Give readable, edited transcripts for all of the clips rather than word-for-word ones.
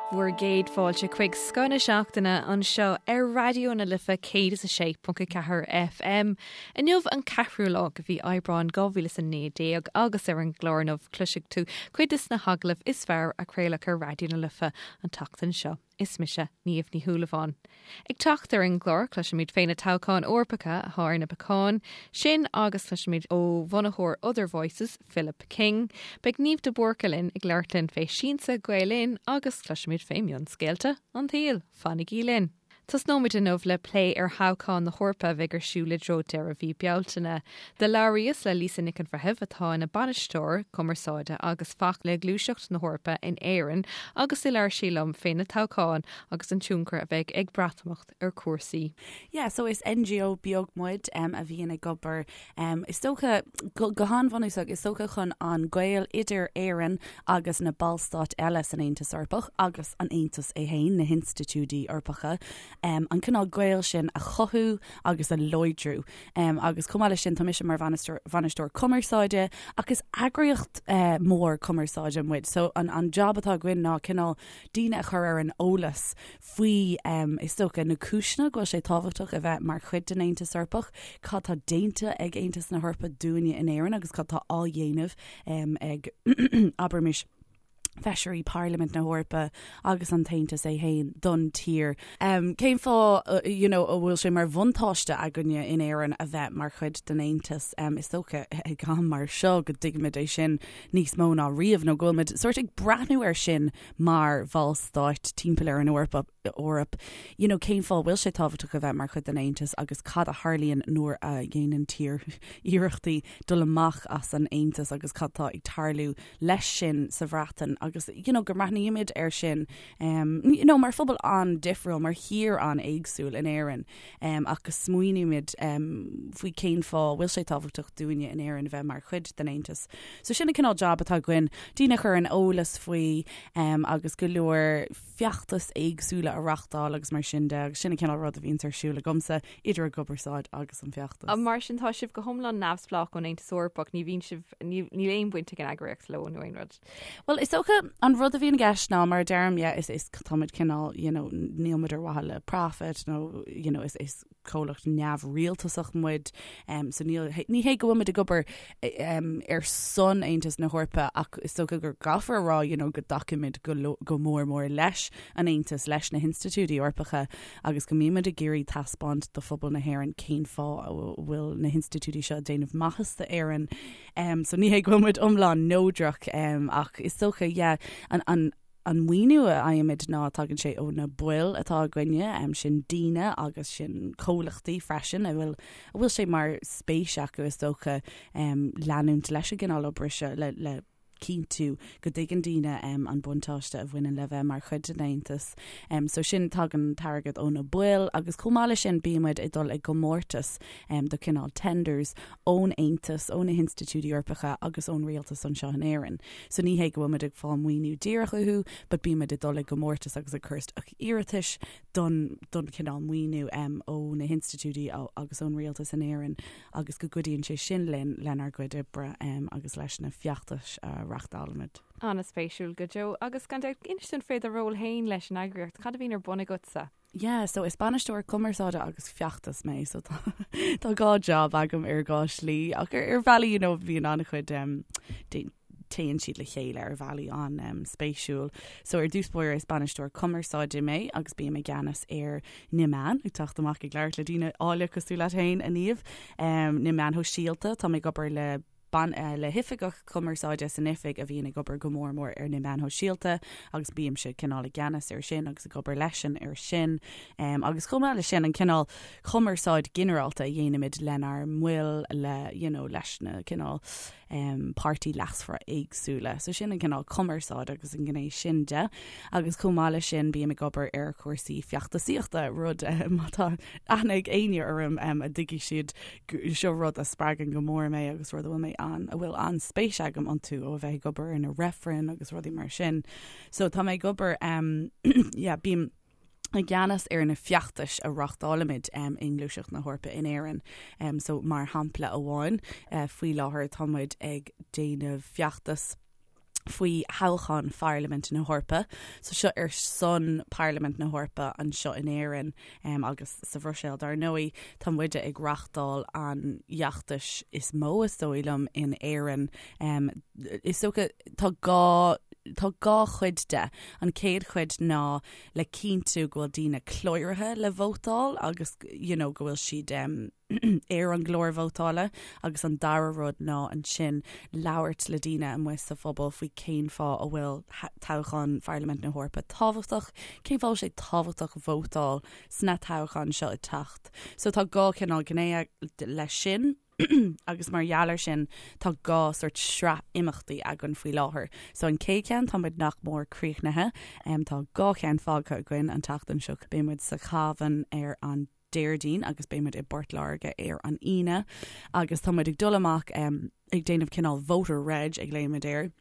Bhur gcéad fáilte chuig Scoth na Seachtaine anseo ar Raidió na Life 106.4 FM. Inniu an ceathrú lá de mhí Aibreáin 2019 agus ar an gclár inniu cloisfidh tú cuid de na hagallaimh is fearr a craoladh ar Raidió na Life an tseachtain seo. Is mise Niamh Ní Shúilleabháin. Ag teacht ar an gclár, cloisfimid fé na toghcháin Eorpacha atá ar na bacáin, sin agus cloisfimid ó bhunaitheoir Other Voices, Philip King. Beidh Niamh de Búrca linn ag labhairt linn fé Siansa Gael Linn agus cloisfimid fé mhionscéalta an tsaoil. Fanaigí linn! Tosnóimid inniu le plé ar thoghcháin na hEorpa a bheidh ar siúl i dtreo deireadh mhí Bealtaine. Do labhraíos le Lisa Nic an Bhreithimh atá ina bainisteoir cumarsáide agus feachtais le Gluaiseacht na hEorpa in Éirinn agus do labhair sí liom fé na toghcháin agus an tionchar a bheidh ag Breatimeacht ar chúrsaí. Yeah, so is NGO beag muid um, a bhíonn ag obair um, is dócha go, go han-bhunúsach is dócha chun an gaol idir Éirinn agus na ballstáit eile san Aontas Eorpach agus an Aontas é féin, na hinstitiúidí Eorpacha, um, an cineál gaol sin a chothú agus a láidriú. Agus chomh maith leis sin, tá mise mar bhainisteoir cumarsáide ach is eagraíocht mhór cumarsáide muid. So an job atá againn ná cineál daoine a chur ar an eolas faoi, is dócha, na cúiseanna go bhfuil sé tábhachtach a bheith mar chuid den Aontas Eorpach, cad tá déanta ag Aontas na hEorpa dúinne in Éirinn agus cad tá á dhéanamh ag, abraimis, Feisirí Pharlaimint na hEorpa agus an tAontas é féin don tír. Cén fáth you know a bhfuil sé mar bhuntáiste againne in Éirinn a bheith mar chuid den Aontas? Is dócha ag am mar seo go dtuigimid é sin níos mó ná riamh nó go bhfuilmid sórt ag breathnú air sin mar bhallstáit timpeall ar an Eoraip, Eoraip. You know cén fáth a bhfuil sé tábhachtach a bheith mar chuid den Aontas agus cad a tharlaíonn nuair a dhéanann tír iarrachtaí dul amach as an Aontas agus cad tá ag tarlú leis sin sa Bhreatain agus you know go mbreathnaímid air sin um, you know, mar phobal an-difriúil, mar thír an-éagsúil in Éirinn um, ach go smaoinímid um, faoi cén fáth bhfuil sé tábhachtach dúinne in Éirinn a bheith mar chuid den Aontas. So sin an cineál job atá againn, daoine a chur ar an eolas faoi um, agus go leor feachtais éagsúla a reachtáil agus mar sin de agus sin an cineál rud a bhíonns ar siúl agamsa idir an gcumarsáid agus an feachtas. Mar sin tá sibh go hiomlán neamhspleách ón Aontas Eorpach, ní bhíonn sibh, níl aon bhaint ag an eagraíocht leo nó aon rud. Bhuel is dócha an rud a bhíonn i gceist ná mar a deirim yeah is is táimid cineál you know níl muid ar mhaithe le profit nó you know is is comhlacht neamhrialtasach muid so níl, ní hé go bhfuil muid ag obair ar son Aontas na hEorpa ach is dócha go gcaithfear a rá you know, go dtacaímid go, go mór mór leis an Aontas, leis na hinstitiúidí Eorpacha agus go mbímid ag iarraidh taispeáint do phobal na hÉireann cén fáth a bhfuil na hinstitiúidí seo ag déanamh maitheas d'Éirinn. Um, so ní hé go bhfuil muid iomlán neodrach um, ach is dócha yeah, an, an, An maoiniú a fhaighimid ná tagann sé ó na baill atá againne, sin daoine agus sin comhlachtaí freisin a bhfuil a bhfuil sé mar spéis acu is dócha leanúint leis an gcineál oibre seo le le cinntiú go dtuigeann daoine an buntáiste a bhaineann le bheith mar chuid den Aontas. So sin tagann an t-airgead ó na baill agus chomh maith leis sin bímid ag dul i gcomórtas do cineál tenders ón Aontas, ó na hinstitiúidí Eorpacha agus ón rialtas anseo in Éirinn. So ní hé go bhfuil muid ag fáil maoiniú díreach uathu, but bímid ag dul i gcomórtas agus ag cur isteach iarratais don don chineál maoiniú um, ó na hinstitiúidí agus ón rialtas in Éirinn agus go gcuidíonn sé sin linn lenár gcuid oibre um, agus leis na feachtais a reachtálaimid. An-spéisiúil go deo. Agus gan dabht, inis dúinn fé do ról féin leis an eagraíocht, cad a bhíonn ar bun agatsa? Yeah, so is bainisteoir cumarsáide agus feachtas mé, so tá tá dhá job agam ar dhá shlí ach ar ar bhealaí you know bíonn an-chuid um, téann siad le chéile ar bhealaí an um, spéisiúil. So ar dtús báire is bainisteoir cumarsáide mé agus bím i gceannas ar na meáin ag teacht amach ag labhairt le daoine áille cosúil leat féin a Niamh um, na meáin shóisialta tá mé ag obair le le hoifigeach cumarsáide san oifig a bhíonn ag obair go mór mór ar na meáin shóisialta agus bímse cineál i gceannas ar sin agus ag obair leisean ar sin. Um, agus chomh maith leis sin an cineál cumarsáid ginearálta a dhéanaimid lenár mbaill le you know, leis na cineál um, páirtithe leasmhara éagsúla. So sin an cineál cumarsáid agus an gné sin de. Agus chomh maith leis sin bím ag obair ar chúrsaí feachtasaíochta rud má tá aithne ag éinne orm um, a dtuigfidh siad Seo rud a spreagann go mór mé agus rud a bhfuil mé an, a bhfuil an-spéis agam iontu ó a bheith ag obair ar na reifrinn agus rudaí mar sin. So tá mé ag obair um, yeah, bím i gceannas ar na feachtais a reachtálaimid um, i nGluaiseacht na hEorpa in Éirinn. Um, so mar shampla amháin, uh, faoi láthair tá muid ag déanamh feachtas. Faoi thoghchán Pharlaimint na hEorpa. So seo ar son Parlaimint na hEorpa anseo in Éirinn agus sa Bhruiséil dar ndóigh. Tá muide ag reachtáil an fheachtais is mó is dóigh liom in Éirinn. Is dócha tá dhá tá dhá chuid de. An chéad chuid ná le cinntiú go bhfuil daoine cláraithe le vótáil agus you know go bhfuil siad ar an gclár vótála agus an dara rud ná ansin labhairt le daoine amuigh sa phobal faoi cén fáth a bhfuil toghchán Pharlaimint na hEorpa tábhachtach, cén fáth a bhfuil sé tábhachtach vótáil sna toghcháin seo ag teacht. So tá dhá chineál gné leis sin agus mar gheall air sin tá dhá sort sraith imeachtaí againn faoi láthair. So an chéad cheann tá muid nach mór críochnaithe, tá dhá cheann fágtha againn an tseachtain seo, beidh muid sa Chabhán ar an Déardaoin agus beidh muid i bPort Láirge ar an Aoine agus tá muid ag dul amach ag déanamh cineál voter reg a ghlaoimid air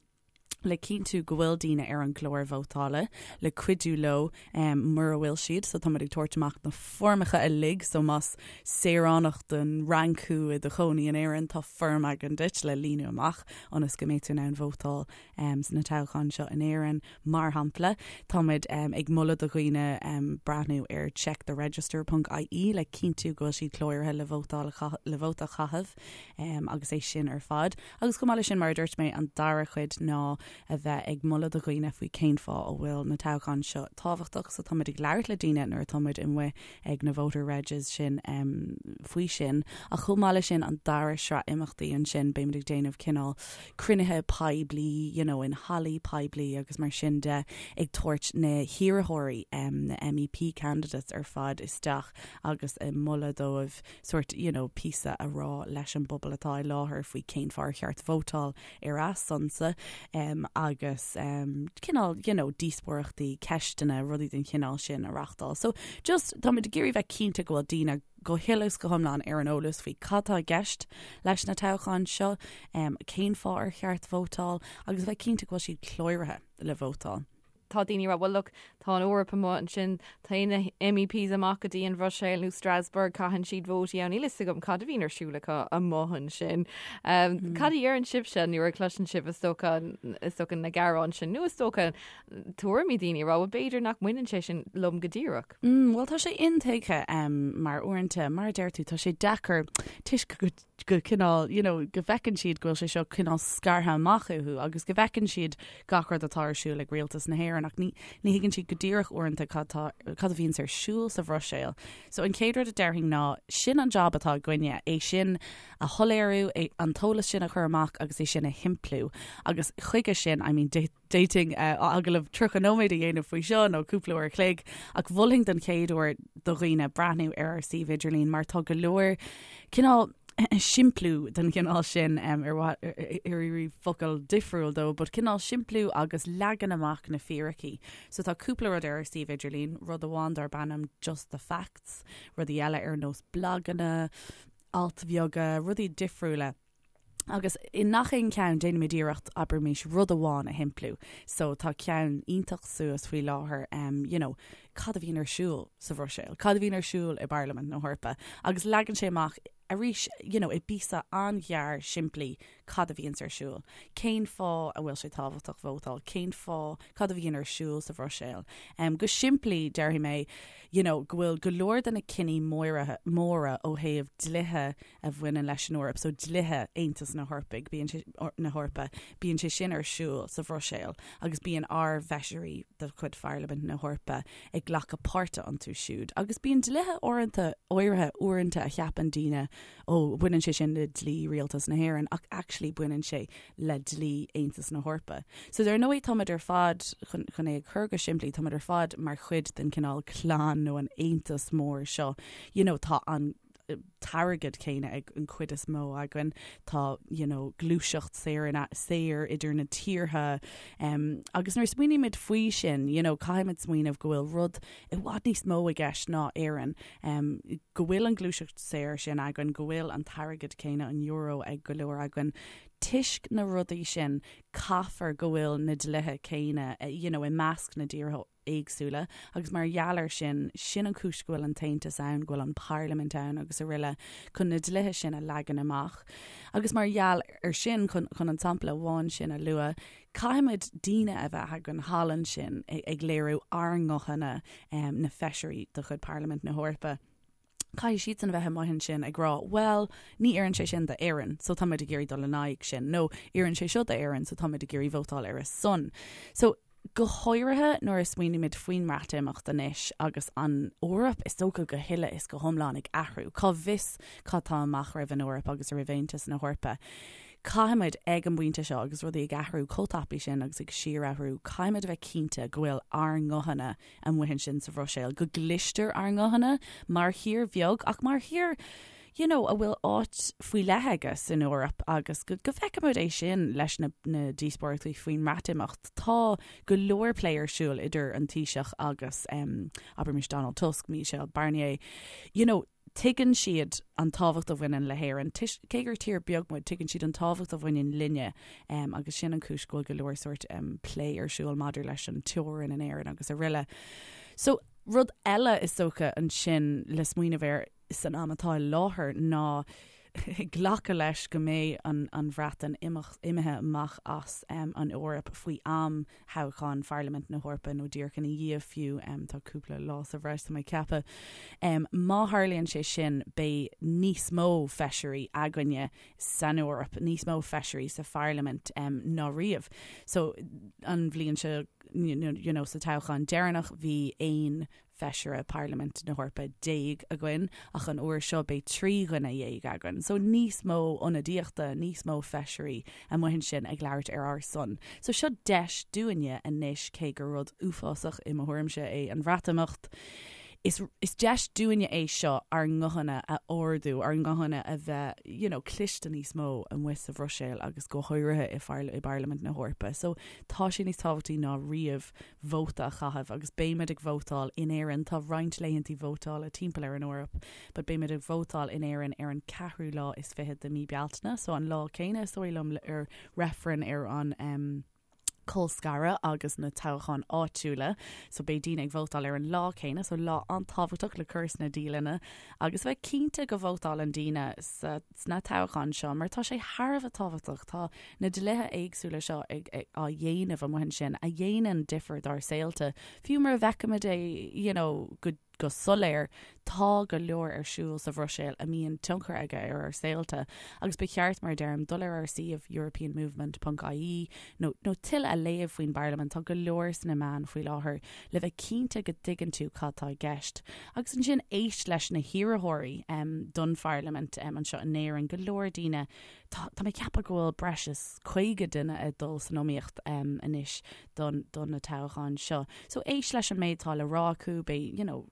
le cinntiú go bhfuil daoine ar an gclár vótála, le cuidiú leo mura bhfuil siad. So tá muid ag tabhairt amach na foirmeacha uilig, so más saoránach den Fhrainc thú i do chónaí in Éirinn, tá foirm againn duit le líonadh amach ionas go mbeidh tú in ann vótáil sna toghcháin seo in Éirinn. Mar shampla, táimid ag moladh do dhaoine breathnú ar checktheregister ponc ie le cinntiú go bhfuil siad cláraithe le vótáil le vóta a chaitheamh agus é sin ar fad. Agus chomh maith leis sin, mar a dúirt mé, an dara cuid ná a bheith ag moladh do dhaoine faoi cén fáth a bhfuil na toghcháin seo tábhachtach. So táimid ag labhairt le daoine nuair atá muid amuigh ag na voter regs sin faoi sin. Ach chomh maith leis sin, an dara sraith imeachtaí ansin, beimid ag déanamh cineál cruinnithe poiblí, you know, in hallaí poiblí agus mar sin de, ag tabhairt na hiarrthóirí, na MEP candidates ar fad isteach agus ag moladh dóibh sort, you know, píosa a rá leis an bpobal atá i láthair faoi cén fáth ar cheart vótáil ar a sonsa agus cineál, you know, díospóireachtaí, ceisteanna, rudaí den chineál sin a reachtáil. So just, táimid ag iarraidh bheith cinnte go bhfuil daoine go huile is go hiomlán ar an eolas faoi cad tá i gceist leis na toghcháin seo, cén fáth ar cheart vótáil agus a bheith cinnte go bhfuil siad cláraithe le vótáil. Tá daoine ag rá, well look, tá an Eoraip amuigh ansin, téann na MEPs amach go dtí an Bhruiséil nó Strasbourg, caitheann siad vótaí ann, níl fhios agam cad a bhíonn ar siúl acu amuigh ansin. Cad a deireann sibhse nuair a chloiseann sibh is dócha, is dócha na gearáin sin nó is dócha tuairimí daoine ag rá, well b'fhéidir nach mbaineann sé sin liom go díreach. Bhuel, tá sé intuigthe mar uaireanta, mar a deir tú, tá sé deacair toisc go go cineál, you know, go bhfeiceann siad go bhfuil sé seo cineál scartha amach uathu agus go bhfeiceann siad gach rud atá ar siúl ag rialtas na hÉireann ach ní ní thuigeann siad go díreach uaireanta cad tá cad a bhíonns ar siúl sa Bhruiséil. So an chéad rud a déarfainn ná sin an job atá againne, é sin a shoiléiriú, é an t-eolas sin a chur amach agus é sin a shimpliú agus chuige sin, I mean, D'fhéadfainn agallamh 30 nóiméad a dhéanamh faoi seo nó cúpla uair a chloig, ach mholfainn don chéad uair do dhaoine breathnú ar ár suíomh idirlín mar tá go leor cineál simpliú den chineál sin ar mhaith ar iarraidh focal difriúil dó, but cineál simpliú agus leagan amach na fíricí. So tá cúpla rud ar ár suíomh idirlín, rud amháin darb ainm Just the Facts, rudaí eile ar nós blaganna, ailt bheaga, rudaí difriúla. Agus i ngach aon cheann déanaimid iarracht, abraimis, rud amháin a shimpliú. So tá ceann iontach suas faoi láthair, em, you know, cad a bhíonn ar siúl sa Bhruiséil, cad a bhíonn ar siúl i bParlaimint na hEorpa. Agus leagann sé amach arís, you know, i bpíosa an-ghearr simplí cad a bhíonns ar siúl. Cén fáth a bhfuil sé tábhachtach vótáil, cén fáth, cad a bhíonn ar siúl sa Bhruiséil. Em, go simplí, déarfaidh mé, you know, go bhfuil go leor de na cinní móra, móra ó thaobh dlíthe a bhaineann leis an Eoraip, so dlíthe Aontas na hEorpaigh, bíonn sé, na hEorpa, bíonn sé sin ar siúl sa Bhruiséil agus bíonn ár bhfeisirí de chuid Pharlaimint na hEorpa ag glacadh páirte iontu siúd. Agus bíonn dlíthe uaireanta, áirithe uaireanta a cheapann daoine, ó, baineann sé sin le dlí Rialtas na hÉireann, ach actually baineann sé le dlí Aontas na hEorpa. So dar ndóigh táimid ar fad, chun, chun é a chur go simplí, táimid ar fad mar chuid den cineál clann nó an aontas mór seo. You know, tá an t-airgead céanna ag an chuid is mó againn. Tá you know, gluaiseacht saor in saor idir na tíortha um, agus nuair smaoinímid faoi sin, you know, caithfimid smaoineamh go bhfuil rud i bhfad níos mó i gceist ná Éirinn, um, go bhfuil an gluaiseacht saor sin againn, go bhfuil an t-airgead céanna an euro ag go leor againn. Toisc na rudaí sin caithfear go bhfuil na dlíthe céanna you know, i measc na dtíortha. éagsúla agus mar gheall air sin, sin an chúis go bhfuil an tAontas ann, go bhfuil an Pharlaimint ann agus araile chun na dlíthe sin a leagan amach. Agus mar gheall air sin, chun an sampla amháin sin a lua, caithfimid daoine a bheith againn thall ansin ag léiriú ár nguthanna, na feisirí de chuid Pharlaimint na hEorpa. Caithfidh siadsan a bheith amuigh ansin ag rá, bhuel, ní oireann sé sin d'Éirinn, so táimid ag iarraidh dul in aghaidh sin, nó oireann sé seo d'Éirinn, so táimid ag iarraidh vótáil ar a son. So, go háirithe nuair a smaoinímid faoin mBreatimeacht anois agus an Eoraip, is dócha go huile is go hiomlán ag athrú, cá bhfios cad tá amach roimh an Eoraip agus roimh Aontas na hEorpa. Caithfimid, ag an bpointe seo, agus rudaí ag athrú chomh tapaidh sin agus ag síorathrú, caithfimid a bheith cinnte go bhfuil ár nguthanna amuigh ansin sa Bhruiséil, go gcloistear ár nguthanna mar thír bheag ach mar thír you know, a bhfuil áit faoi leith aige san Eoraip agus go, go bhfeicimid é sin leis na, na díospóireachtaí faoin mBreatimeacht. Tá go leor plé ar siúl idir an Taoiseach agus um, abraimis Donald Tusk, Michel Barnier. You know, Tuigeann siad an tábhacht a bhaineann le hÉirinn. Cé gur tír beag muid, tuigeann siad an tábhacht a bhaineann linne agus sin an chúis go bhfuil go leor sórt plé ar siúl maidir leis an teorainn in Éirinn agus araile. So, rud eile is dócha ansin le smaoineamh air san am atá i láthair ná glacadh leis go mbeidh an an Bhreatain imithe amach as an Eoraip faoi am thoghchán Pharlaimint na hEorpa nó díreach ina dhiaidh fiú, tá cúpla lá sa bhreis tá mé ag ceapadh. Má tharlaíonn sé sin beidh níos mó feisirí againne san Eoraip, níos mó feisirí sa Pharlaimint ná riamh. So an bhliain seo you know sa toghchán deireanach bhí aon Feisire Parlaimint na hEorpa againn, ach an uair seo beidh 13 dhuine againn. So níos mó ionadaíochta, níos mó feisirí amuigh ansin ag labhairt ar ár son. So seo deis dúinne anois, cé gur rud uafásach i mo thuairimse é an Bhreatimeacht, is is deis dúinne é seo ár nguthanna a ardú, ár nguthanna a bheith you know, cliste níos mó amuigh sa Bhruiséil agus go háirithe i i bParlaimint na hEorpa. So tá sé níos tábhachtaí ná riamh vóta a chaitheamh agus beimid ag vótáil in Éirinn, tá roinnt laethantaí vótála timpeall ar an Eoraip, but beimid ag vótáil in Éirinn ar an ceathrú lá is fichead de mí Bealtaine, so an lá céanna is dóigh liom ar reifreann ar an em colscaradh agus na toghcháin áitiúla, so beidh daoine ag vótáil ar an lá céanna, so lá an-tábhachtach le cur sna dialanna agus bheith cinnte go vótálann daoine sa sna toghcháin seo mar tá sé thar a bheith tábhachtach. Tá na dlíthe éagsúla seo ag á dhéanamh amuigh ansin a dhéanann difear dár saolta. Fiú mura bhfeicimid é you know, go, go soiléir, tá go leor ar siúl sa Bhruiséil a mbíonn tionchar aige ar ár saolta agus ba cheart, mar a deirim, dul ar ár suíomh europeanmovement.ie nó, nó tuilleadh a léamh faoin bParlaimint. Tá go leor sna meáin faoi láthair le bheith cinnte go dtuigeann tú cad tá i gceist. Agus ansin éist leis na hiarrthóirí don Pharlaimint anseo in Éirinn, go leor daoine, tá mé ag ceapadh go bhfuil breis is 50 duine ag dul san iomaíocht anois don don na toghcháin seo. So éist leis an méid atá le rá acu, beidh, you know,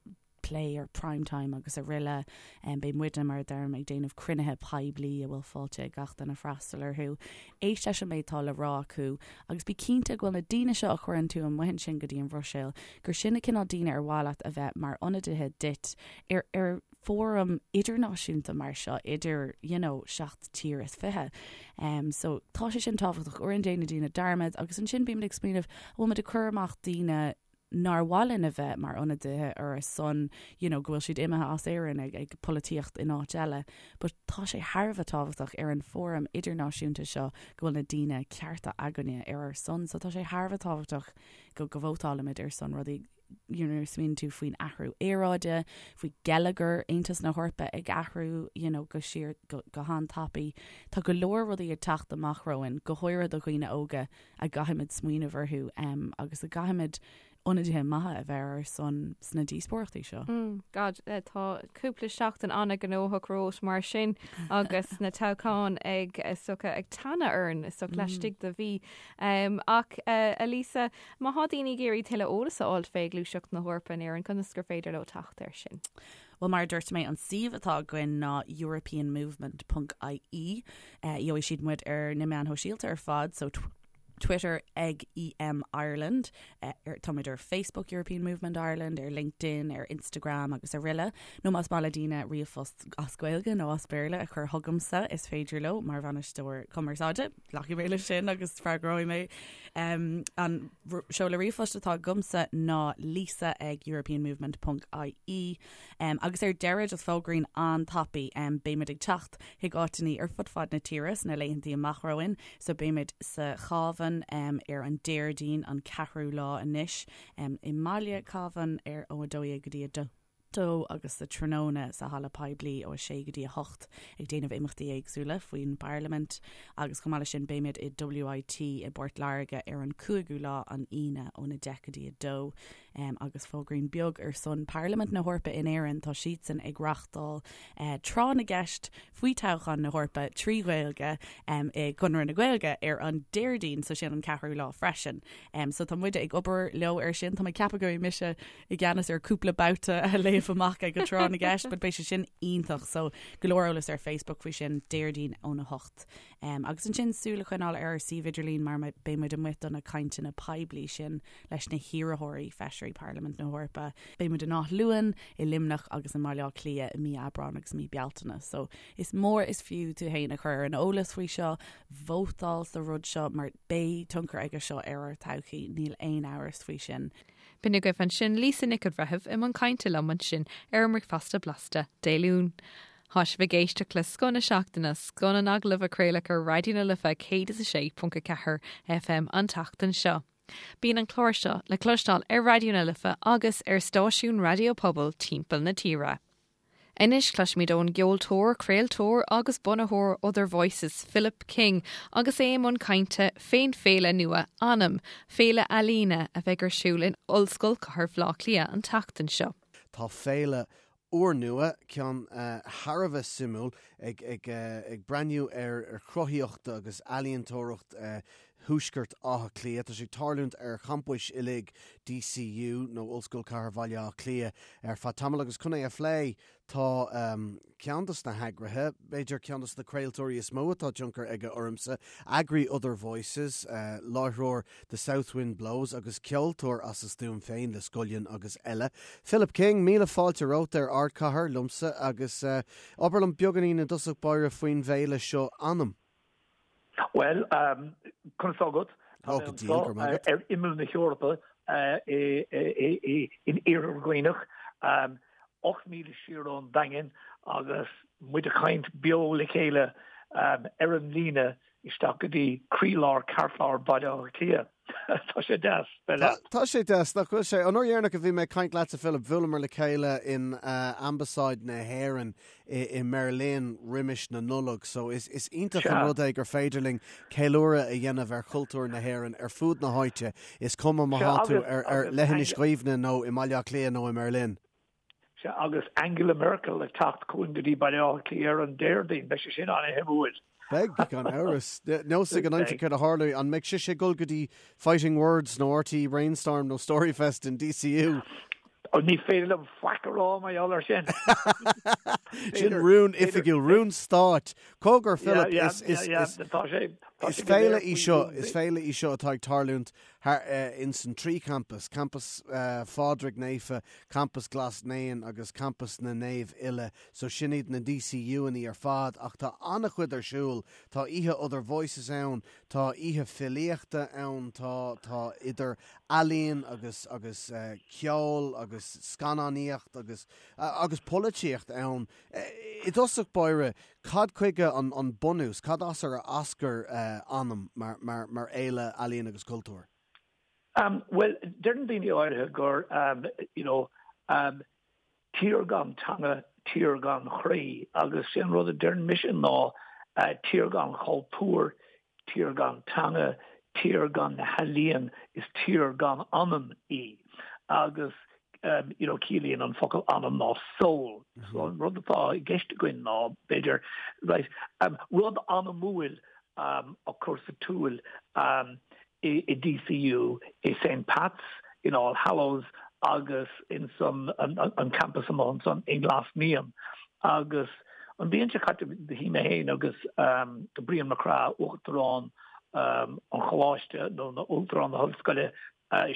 plé ar Prime Time agus araile. Beidh muidne, mar a deirim, ag déanamh cruinnithe poiblí a bhfuil fáilte ag gach duine freastal orthu. Éist leis an méid atá le rá acu agus bí cinnte go bhfuil na daoine seo a chuireann tú amuigh ansin go dtí an Bhruiséil, gur sin na cineál daoine ar mhaith leat a bheith mar ionadaithe duit ar ar fóram idirnáisiúnta mar seo idir you know, 7 tír is 20. Um, so tá sé sin tábhachtach uaireanta déanann daoine dearmad agus ansin bímid ag smaoineamh an bhfuil muid ag cur amach daoine nár mhaith linn a bheith mar ionadaithe ar ár son you know, go bhfuil siad imithe as Éirinn ag, ag polaitíocht in áit eile. But tá sé thar a bheith tábhachtach ar an fóram idirnáisiúnta seo go bhfuil na daoine cearta againne ar ár son, so tá sé thar a bheith tábhachtach go, go vótálaimid ar son rudaí you know, smaoiníonn tú faoin athrú aeráide, faoi geilleagar Aontas na hEorpa ag athrú you know, go síor go, go han-tapaidh. Tá go leor rudaí ag teacht amach romhainn, go háirithe do dhaoine óga a gcaithfimid smaoineamh orthu um, agus a gcaithfimid ionadaithe maithe a bheith ar ár son sna díospóireachtaí seo. Mm, God, eh, tá cúpla seachtain an-ghnóthach romhat mar sin agus na toghcháin ag is dócha ag teannadh orainn is dócha laistigh de mhí. Um, ach uh, Elisa, má thá daoine ag iarraidh tuilleadh eolas a fháilt fé Ghluaiseacht na hEorpa in Éirinn, conas gur féidir leo teacht air sin? Bhuel, mar a dúirt mé, an suíomh atá againn ná europeanmovement.ie. Gheobhaidh siad muid ar na meáin shóisialta ar fad, so Twitter ag EM Ireland, táimid ar Facebook European Movement Ireland, ar LinkedIn, ar Instagram agus araile. Nó más maith le daoine ríomhphost as Gaeilge nó as Béarla a chur chugamsa, is féidir leo mar bhainisteoir cumarsáide. Glacfaidh mé leis sin agus freagróidh mé. An seoladh ríomhphoist atá agamsa ná lisa ag europeanmovement ponc ie. Agus ar deireadh, just fógraín an-tapaidh, beimid ag teacht chuig áiteannaí ar fud fad na tíre sna laethantaí amach romhainn. So beimid sa Chábhán ar an Déardaoin an ceathrú lá anois, i mbaile Cabhán ar ó 12 go dtí 2 agus sa tráthnóna sa halla poiblí ó 6 go dtí 8 ag déanamh imeachtaí éagsúla faoin bParlaimint agus chomh maith leis sin beimid i WIT i bPort Láirge ar an cúigiú lá an Aoine óna 10 go dtí 2 agus fógraín beag ar son Parlaimint na hEorpa in Éirinn, tá siadsan ag reachtáil tráth na gceist faoi toghchán na hEorpa 3 Ghaeilge i gConradh na Gaeilge ar an Déardaoin, so sin an ceathrú lá freisin. So tá muide ag obair leo ar sin, tá mé ag ceapadh go mbeidh mise i gceannas ar cúpla babhta a léamh amach ag an tráth na gceist, but beidh sé sin iontach, so go leor eolas ar Facebook faoi sin Déardaoin óna hocht. Agus ansin súil a choinneáil ar ár suíomh idirlín mar beidh muid amuigh do na cainteanna poiblí sin leis na hiarrthóirí feisirí Parlaimint na hEorpa. Beidh muid in Áth Luain, i Luimneach agus i mBaile Átha Cliath i mí Aibreáin agus mí Bealtaine. So is mór is fiú tú féin a chur ar an eolas faoi seo, vótáil sa rud seo mar beidh tionchar aige seo ar ár todhchaí, níl aon amhras faoi sin. B'in agaibh ansin Lisa Nic an Bhreithimh i mbun cainte liom ansin ar an mBricfeasta Blasta Dé Luain. Tá sibh ag éisteacht le Scoth na Seachtaine, scoth na n-agallamh a craoladh ar Raidió na Life 106.4 FM an tseachtain seo. Bíonn an clár seo le cloisteáil ar Raidió na Life agus ar stáisiúin raidió pobail timpeall na tíre. Anois cloisfimid ón gceoltóir, craoltóir agus bunaitheoir Other Voices, Philip King, agus é i mbun cainte fén féile nua Anam, féile ealaíne a bheidh ar siúl in Ollscoil Chathair Bhaile Átha Cliath an tseachtain seo. Tá féile úrnua, ceann thar a bheith suimiúil, ag breathnú ar chruthaíocht agus ealaíontóireacht Thuaisceart Átha Cliath. Tá sé ag tarlúint ar champais uilig DCU, nó Ollscoil Chathair Bhaile Átha Cliath, ar feadh tamaill agus chun é a phlé tá ceann dos na heagraithe, b'fhéidir ceann dos na craoltóirí is mó atá tionchar aige ormsa, eagraí Other Voices, láithreoir The South Wind Blows agus ceoltóir as a stuaim féin le Scullion agus eile. Philip King, míle fáilte romhat ar Ardchathair liomsa agus abair liom beagáinín i dtosach báire faoin bhféile seo Anam. Bhuel, conas tá agat? Tá mé anseo ar imeall na hEorpa in Iarthar Dhuibhneach, 8 míle siar ón Daingean agus muid ag caint beo le chéile ar an líne isteach go dtí croílár, ceartlár Bhaile Átha Cliath. Tá sé deas bheith leat. Tá sé deas, nach bhfuil sé? An uair dheireanach a bhí mé ag caint leatsa, Philip, bhuaileamar le chéile in Ambasáid na hÉireann i mBerlin roimis na Nollag, so is iontach an rud é gur féidir linn ceiliúradh a dhéanamh ar chultúr na hÉireann ar fud na háite, is cuma má tá tú ar Leithinis Dhuibhne nó i mBaile Átha Cliath nó i mBerlin. Sea, agus Angela Merkel ag teacht chugainn go dtí Baile Átha Cliath ar an Déardaoin, beidh sé sin an-shuimiúil. Beidh, gan amhras. Níl a fhios ag an aimsir céard a tharlóidh. An mbeidh sise ag dul go dtí Fighting Words nó RTÉ Brainstorm nó Storyfest in DCU? Ní féidir liom faic a rá mar gheall air sin. Sin rún oifigiúil, rún stáit. Cogar, Philip, is féile í seo, is féile í seo atá ag tarlúint thar ins an trí champas, Campas Phádraig Naofa, Campas Ghlas Naíon agus Campas na Naomh Uile, so sin iad na DCU-annaí ar fad ach tá an-chuid ar siúl, tá oíche Other Voices ann, tá oíche filíochta ann, tá tá idir ealaín agus agus ceol agus scannánaíocht agus agus polaitíocht ann. I dtosach báire, Cad chuige an bunús, cad as ar eascair Anam mar fhéile ealaíon agus cultúir? Bhuel, deireann daoine áirithe gur, you know, tír gan teanga, tír gan chroí agus sé an rud a deireann mise ná tír gan chultúr, Tír gan teanga, tír gan na healaíon, is tír gan anam í. Agus you know ciallaíonn an focal anam ná soul. So an rud atá i gceist againn ná, b'fhéidir, right, rud anamúil a chur sa tsiúl i DCU, i St Pat's, in All Hallows agus in san an campus amuigh ansan i nGlas Naíon. Agus an bhliain seo caite bhí mé féin agus Brian Mac Craith, Uachtarán. an choláiste nó na Uachtarán na hOllscoile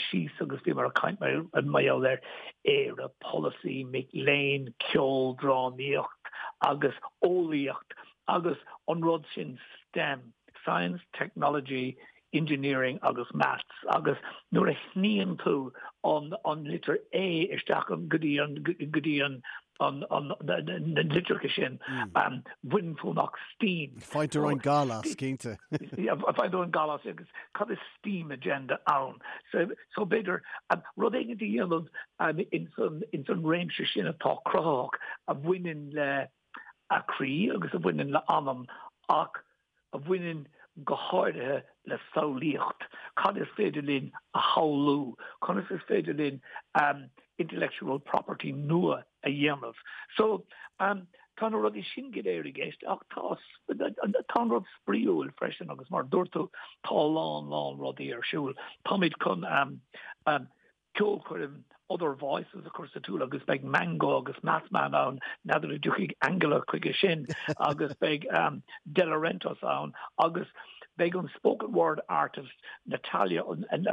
síos agus bhíomar ag caint mar gheall ar Éire, polasaí, mic léinn, ceol, drámaíocht agus eolaíocht agus an rud sin STEM, Science, Technology, Engineering agus Maths agus nuair a shníonn tú an litir A isteach go dtí an go dtí an an an na litreacha sin baineann tú amach STEAM. Faightear an gal as, cinnte. Faightear an gal as agus cad is STEAM agenda ann? So so b'fhéidir rud éigin a dhéanamh ins an ins an réimse sin atá cruthaitheach a bhaineann le a croí agus a bhaineann le anam ach a bhaineann go háirithe le samhlaíocht. Cad is féidir linn a shamhlú? Conas is féidir linn intellectual property nua a dhéanamh? So, tá na rudaí sin go léir i gceist ach tá tá an rud spraíúil freisin agus mar a dúirt tú, tá a lán lán rudaí ar siúl. Táimid chun ceolchoirm Other Voices a chur sa tsiúl agus beidh Mango agus Mathman ann, n'fheadar an dtiocfaidh Angela chuige sin agus beidh Delarentos ann agus beidh an spoken word artist Natalia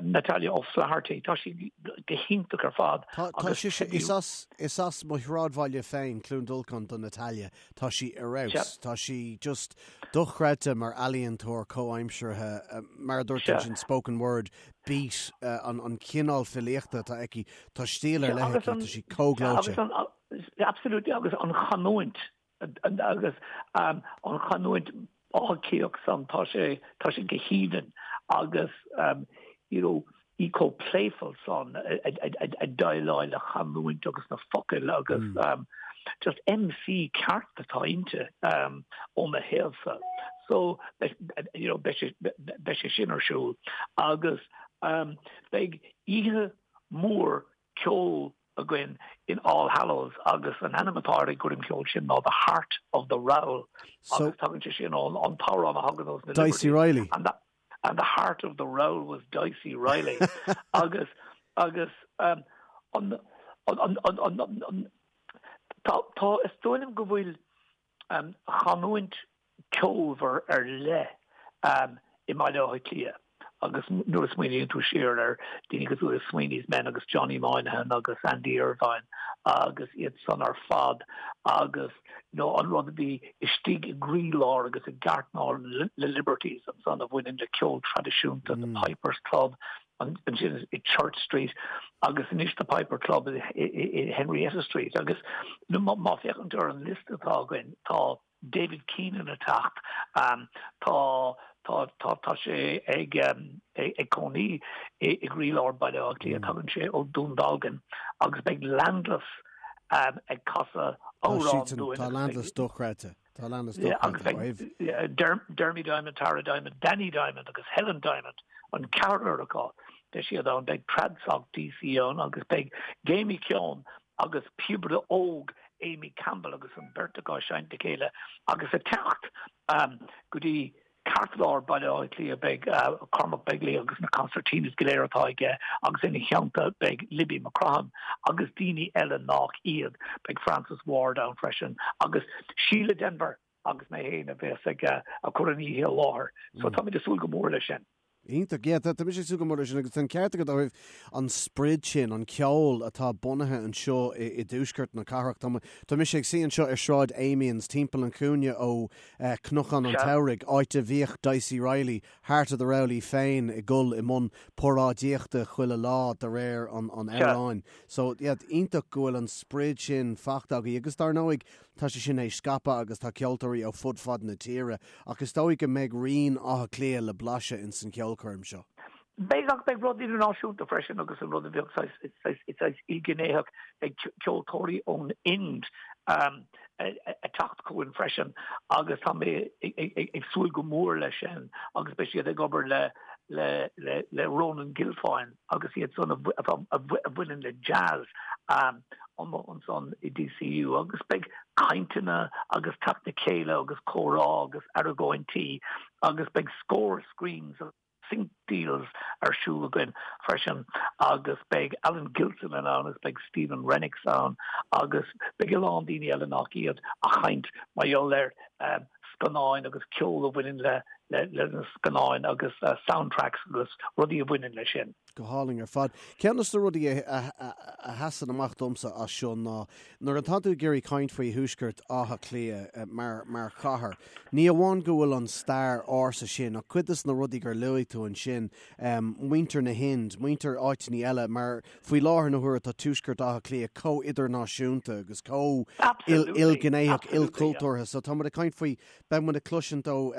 Natalia O'Flaherty, tá sí go hiontach ar fad. Tá tá sise is as is as mo shráidbhaile féin, Cluain Dolcáin do Natalia. Tá sí ar fheabhas. Tá sí just dochreidte mar ealaíontóir comhaimseartha, mar a dúirt tú ansin spoken word beat, an cineál filíochta atá aici, tá stíl ar leith aici, tá sí chomh gleoite. Absolutely, agus an chanúint, agus an chanúint Átha Cliathach san, tá sé, tá sé go haoibhinn agus you know, í chomh playful san ag déileáil le chanúint agus na focail agus just MC ceart atá inti ó mo thaobhsa. So you know beidh sé beidh sé sin ar siúl agus beidh oíche mhór ceoil againn in All Hallows agus an ainm atá ar an gcoirm cheoil sin ná The Heart of the Rowl agus tagann sé sin ón an t-amhrán a thagann ós na Dicey Reilly. And the heart of the rowl was Dicey Reilly agus agus um, an an an an an an tá tá is dóigh liom go bhfuil um, chanúint ceolmhar ar leith um, i mBaile Átha Cliath agus nuair a smaoiníonn tú siar ar daoine cosúil le Sweeney's Men agus Johnny Moynihan agus Andy Irvine agus iad san ar fad agus nó an rud a bhí istigh i gcroílár agus i gceartlár na Liberties ansan a bhaineann le ceol traidisiúnta, the Pipers Club, ansin i Church Street agus anois the Piper Club i Henrietta Street agus má féachann tú ar an liosta atá againn tá David Keenan ag teacht, tá tá tá tá sé ag ag cónaí i gcroílár Baile Átha Cliath, tagann sé ó Dún Dealgan agus beidh Landless ag casadh amhrán dúinn. Tá Landless dochreidte. Tá Landless dochreidte. Agus beidh Dermy Diamond, Tara Diamond, Danny Diamond agus Helen Diamond, an ceathrar acu, beidh siad ann, beidh Tradsoc DC ann agus beidh Jamie Keown agus píobaire óg Amy Campbell agus an bheirt acu ag seinnt le chéile agus ag teacht go dtí ceartlár Baile Átha Cliath beidh Cormac Begley agus na concertinas go léir atá aige agus ina theannta beidh Libby McCrohan agus daoine eile nach iad. Beidh Frances Ward ann freisin agus Síle Denvir agus mé féin a bheas ag cur an oíche i láthair. So táimid ag súil go mór leis sin. Iontach. Yeah, tá mise ag súil go mór leis sin agus tá an ceart agat ó thaobh an sprid sin, an ceol atá bunaithe anseo i i dtuaisceart na cathrach. Tá tá mise ag suí anseo ar Sráid Amiens, timpeall an chúinne ó Cnocán an tSamhraidh, áit a bhíodh Dicey Reilly, Heart of the Rowl í féin ag dul i mbun paráidíochta chuile lá de réir an an amhráin. So, yeah, iontach go bhfuil an sprid sin fachta agaibh agus dar ndóigh tá sé sin théis scaipeadh agus tá ceoltóirí ó fud fad na tíre Ach is dóigh go mbeidh rian Átha Cliath le blaiseadh ins an cheolchoirm seo. Beidh, ach beidh rud idirnáisiúnta freisin agus an rud a bheadh saghas ilghnéitheach, beidh ceoltóirí ón Ind ag teacht chugainn freisin agus tá mé ag súil go mór leis sin agus beidh siad ag obair le le Ronan Guilfoyle. agus iad san a bhaineann le jazz amuigh ansan i DCU agus beidh cainteanna agus teacht le chéile agus comhrá agus argóintí agus beidh scór screens agus sync deals ar siúl againn freisin agus beidh Alan Gilsenan ann agus beidh Stephen Rennicks ann agus beidh a lán daoine eile nach iad ag caint mar gheall ar. scannáin agus ceol a bhaineann le le na scannáin agus soundtracks agus rudaí a bhaineann leis sin. Go hálainn ar fad. Ceann de na rudaí a sheasann amach domsa as seo ná nuair atá tú ag iarraidh caint faoi Thuaisceart Átha Cliath mar mar chathair, ní amháin go bhfuil an stair ársa sin ach cuid de na rudaí gur luaigh tú ansin, muintir na hInd, muintir áiteanna eile mar faoi láthair na huaire tá Tuaisceart Átha Cliath chomh idirnáisiúnta agus chomh ilghnéitheach, ilchultúrtha. So tá muid ag caint faoi, beidh muid ag cloisint ó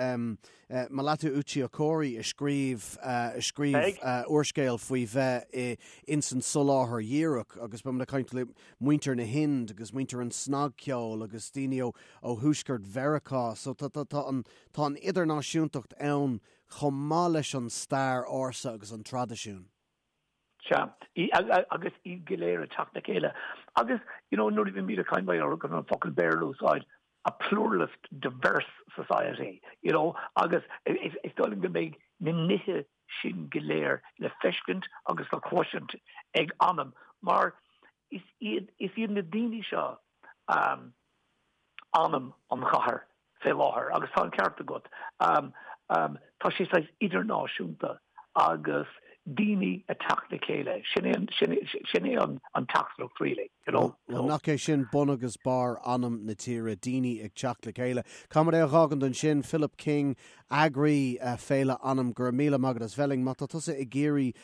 Melatu Uche Okorie a scríobh a scríobh úrscéal faoi bheith ins an soláthar dhíreach agus beidh muid ag caint le muintir na hInd agus muintir an snagcheoil agus daoine ó ó thuaisceart Mheiriceá. So tá tá tá an tá an idirnáisiúntacht ann chomh maith leis an stair ársa agus an traidisiún. Sea, agus iad go léir ag teacht le chéile. Agus, you know, nuair a bhímid ag caint, mar an focal Béarla a úsáid, a pluralist, diverse society, you know, agus is dóigh liom go mbeidh na nithe sin go léir le feiscint agus le cloisint ag Anam, mar is iad, is iad na daoine seo, anam an chathair fé láthair agus tá an ceart agat. Tá sé saghas idirnáisiúnta agus daoine ag teacht le chéile, sin é sin é an teachtaireacht really, you know. Bhuel, nach é sin bun agus barr anam na tíre, daoine ag teacht le chéile. Caithfidh muid é a dh'fhágaint ansin, Philip King, eagraí Féile Anam, go raibh míle maith agat as bheith linn. Má tá tusa ag iarraidh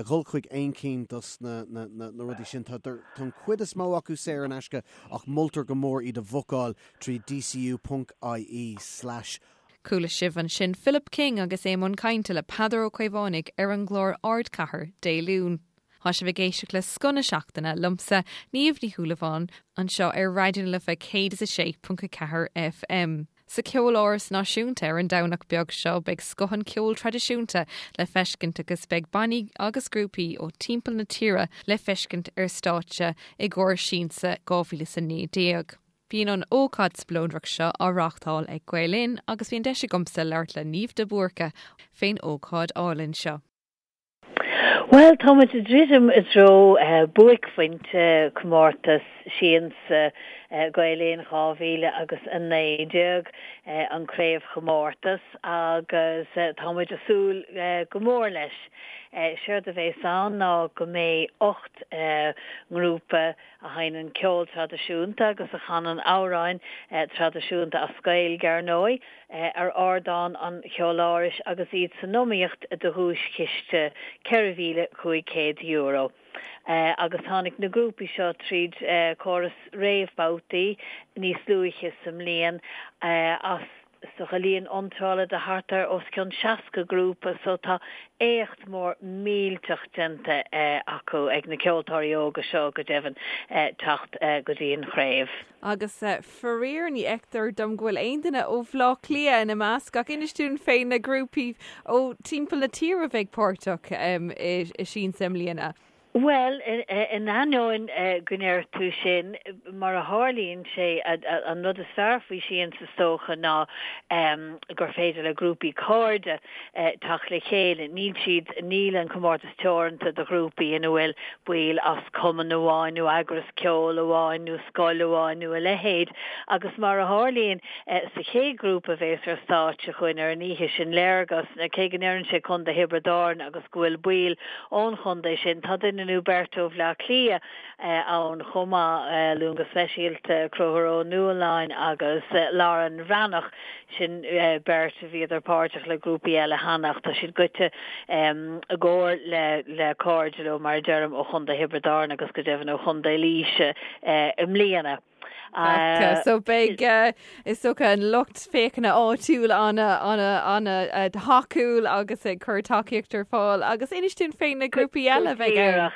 dhul chuig aon cinn dos na rudaí sin. Tá an chuid is mó acu saor in aisce ach moltar go mór iad a bhookáil trí dcu ponc ie slash. Chuala sibh ansin Philip King agus é i mbun cainte le Peadar Ó Caomhánaigh ar an gclár Ardchathair Dé Luain. Tá sibh ag éisteacht le Scoth na Seachtaine liomsa, Niamh Ní Shúilleabháin, anseo ar Raidió na Life 106.4 FM. Sa Cheoláras Náisiúnta ar an Domhnach beag seo beidh scoth an cheoil traidisiúnta le feiscint agus beidh bannaí agus grúpaí ó timpeall na tíre le feiscint ar stáitse i gcomhair Siansa 2019. Bíonn an ócáid spleodrach seo á reáchtáil ag Gael Linn agus bhí an deis agamsa labhairt le Niamh de Búrca fén ócáid álainn seo. Bhuel, tá muid ag druidim i dtreo buaicphointe comórtas Siansa Gael Linn 2000 agus 19, an craobhchomórtas, agus tá muid ag súil go mór leis. Séard a bhéas ann ná go mbeidh 8 ngrúpa a sheinneann ceol traidisiúnta agus a chanann amhráin traidisiúnta as Gaeilge, ar ndóigh, ar ardán an Cheolárais agus iad san iomaíocht do dhuaischiste €4,500. Agus tháinig na grúpaí seo tríd córas réamhbhabhtaí níos luaithe sa mbliain as is dócha líon iontrála de thart ar os cionn 60 grúpa so tá éacht mór millteach déanta acu, ag na ceoltóirí óga seo go deimhin, teacht go dtí an chraobh. Agus faraor ní fheictear dom go bhfuil aon duine ó Bhleá Cliath ina measc ach inis dúinn fé na grúpaí ó timpeall na tíre a bheidh páirteach i Siansa i mbliana. Bhuel, in ainneoin go ndeir tú sin, mar a tharlaíonn sé, an rud is fearr faoi Siansa is dócha ná gur féidir le grúpaí cairde teacht le chéile. Níl siad, níl an comórtas teoranta do ghrúpaí ina bhfuil baill as cumann amháin nó eagras ceoil amháin nó scoil amháin nó a leithéid. Agus mar a tharlaíonn, sa chéad ghrúpa a bhéas ar stáitse chugainn ar an oíche sin, Léargas, cé go ndeireann sé Contae Thiobraid Árann agus go bhfuil baill ón chontae sin. Tá duine nó beirt ó Bhleá Cliath ann chomh maith, luaim go speisialta Conchúr Ó Nualláin agus Lauren Bhreathnach, sin beirt a bhíodar páirteach le grúpaí eile cheana ach tá siad goite i gcomhar le cairde leo, mar a deirim, ó chontae Thiobraid Árann agus go deimhin ó chontae Laoise i mbliana. So beidh is dócha an lucht féachana áitiúil an-an-an-thacúil agus ag cur tacaíocht ar fáil agus inis dúinn fé na grúpaí eile a bheidh ann.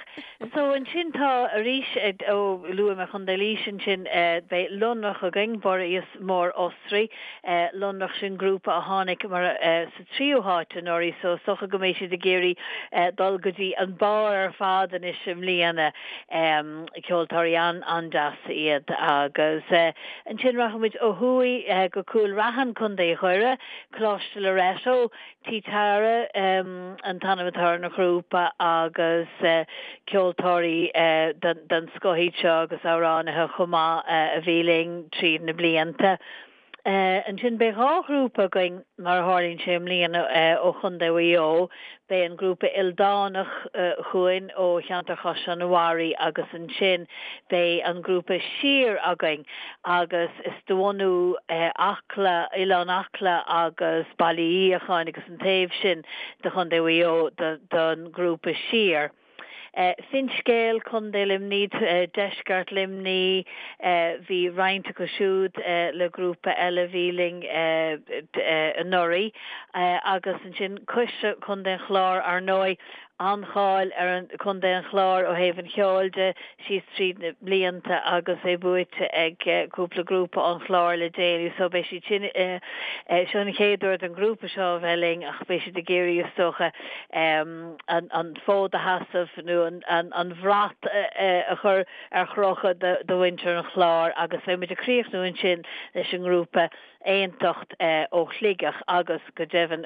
So ansin tá arís ó luaigh mé Contae Laoise ansin beidh Lonrach againn, Buiríos Mór Osraí, Lonrach sin grúpa a tháinig mar sa tríú háit anuraidh so is dócha go mbeidh siad ag iarraidh dul go dtí an barr ar fad anois i mbliana. Ceoltóirí an-an-deas iad agus ansin rachaidh muid ó thuaidh go Cúil Raithin, Contae Dhoire, Coláiste Loreto, Tí Tara an t-ainm atá ar an ghrúpa agus ceoltóirí den scoth iad seo agus amhránaithe chomh maith a bhí linn tríd na blianta. Ansin beidh 2 ghrúpa againn mar a tharlaíonn sé i mbliana ó Chontae Mhaigh Eo. Beidh an grúpa Ildánach chugainn ó cheantar Chaisleán an Bharraigh agus ansin beidh an grúpa Siar againn agus is de bhunú Acla, Oileán Acla agus Baile Uí Fhiacháin agus an taobh sin de Chontae Mhaigh Eo don ghrúpa Siar. Finscéal, Contae Luimnigh, Deisceart Luimnigh, bhí roinnt acu siúd le grúpa eile a bhí linn anuraidh agus ansin Coisre, Contae an Chláir, ar ndóigh, an-cháil ar Chontae an Chláir ó thaobh an cheoil de síos tríd na blianta agus é buaite ag cúpla grúpa ón Chlár le déanaí so beidh siad sin, seo an chéad uair don ghrúpa seo a bheith linn ach beidh siad ag iarraidh is dócha an fód a sheasamh nó an bhrat a chur ar chrochadh do mhuintir an Chláir agus beidh muid ag críochnú ansin leis an ngrúpa Aontacht ó Shligeach agus go deimhin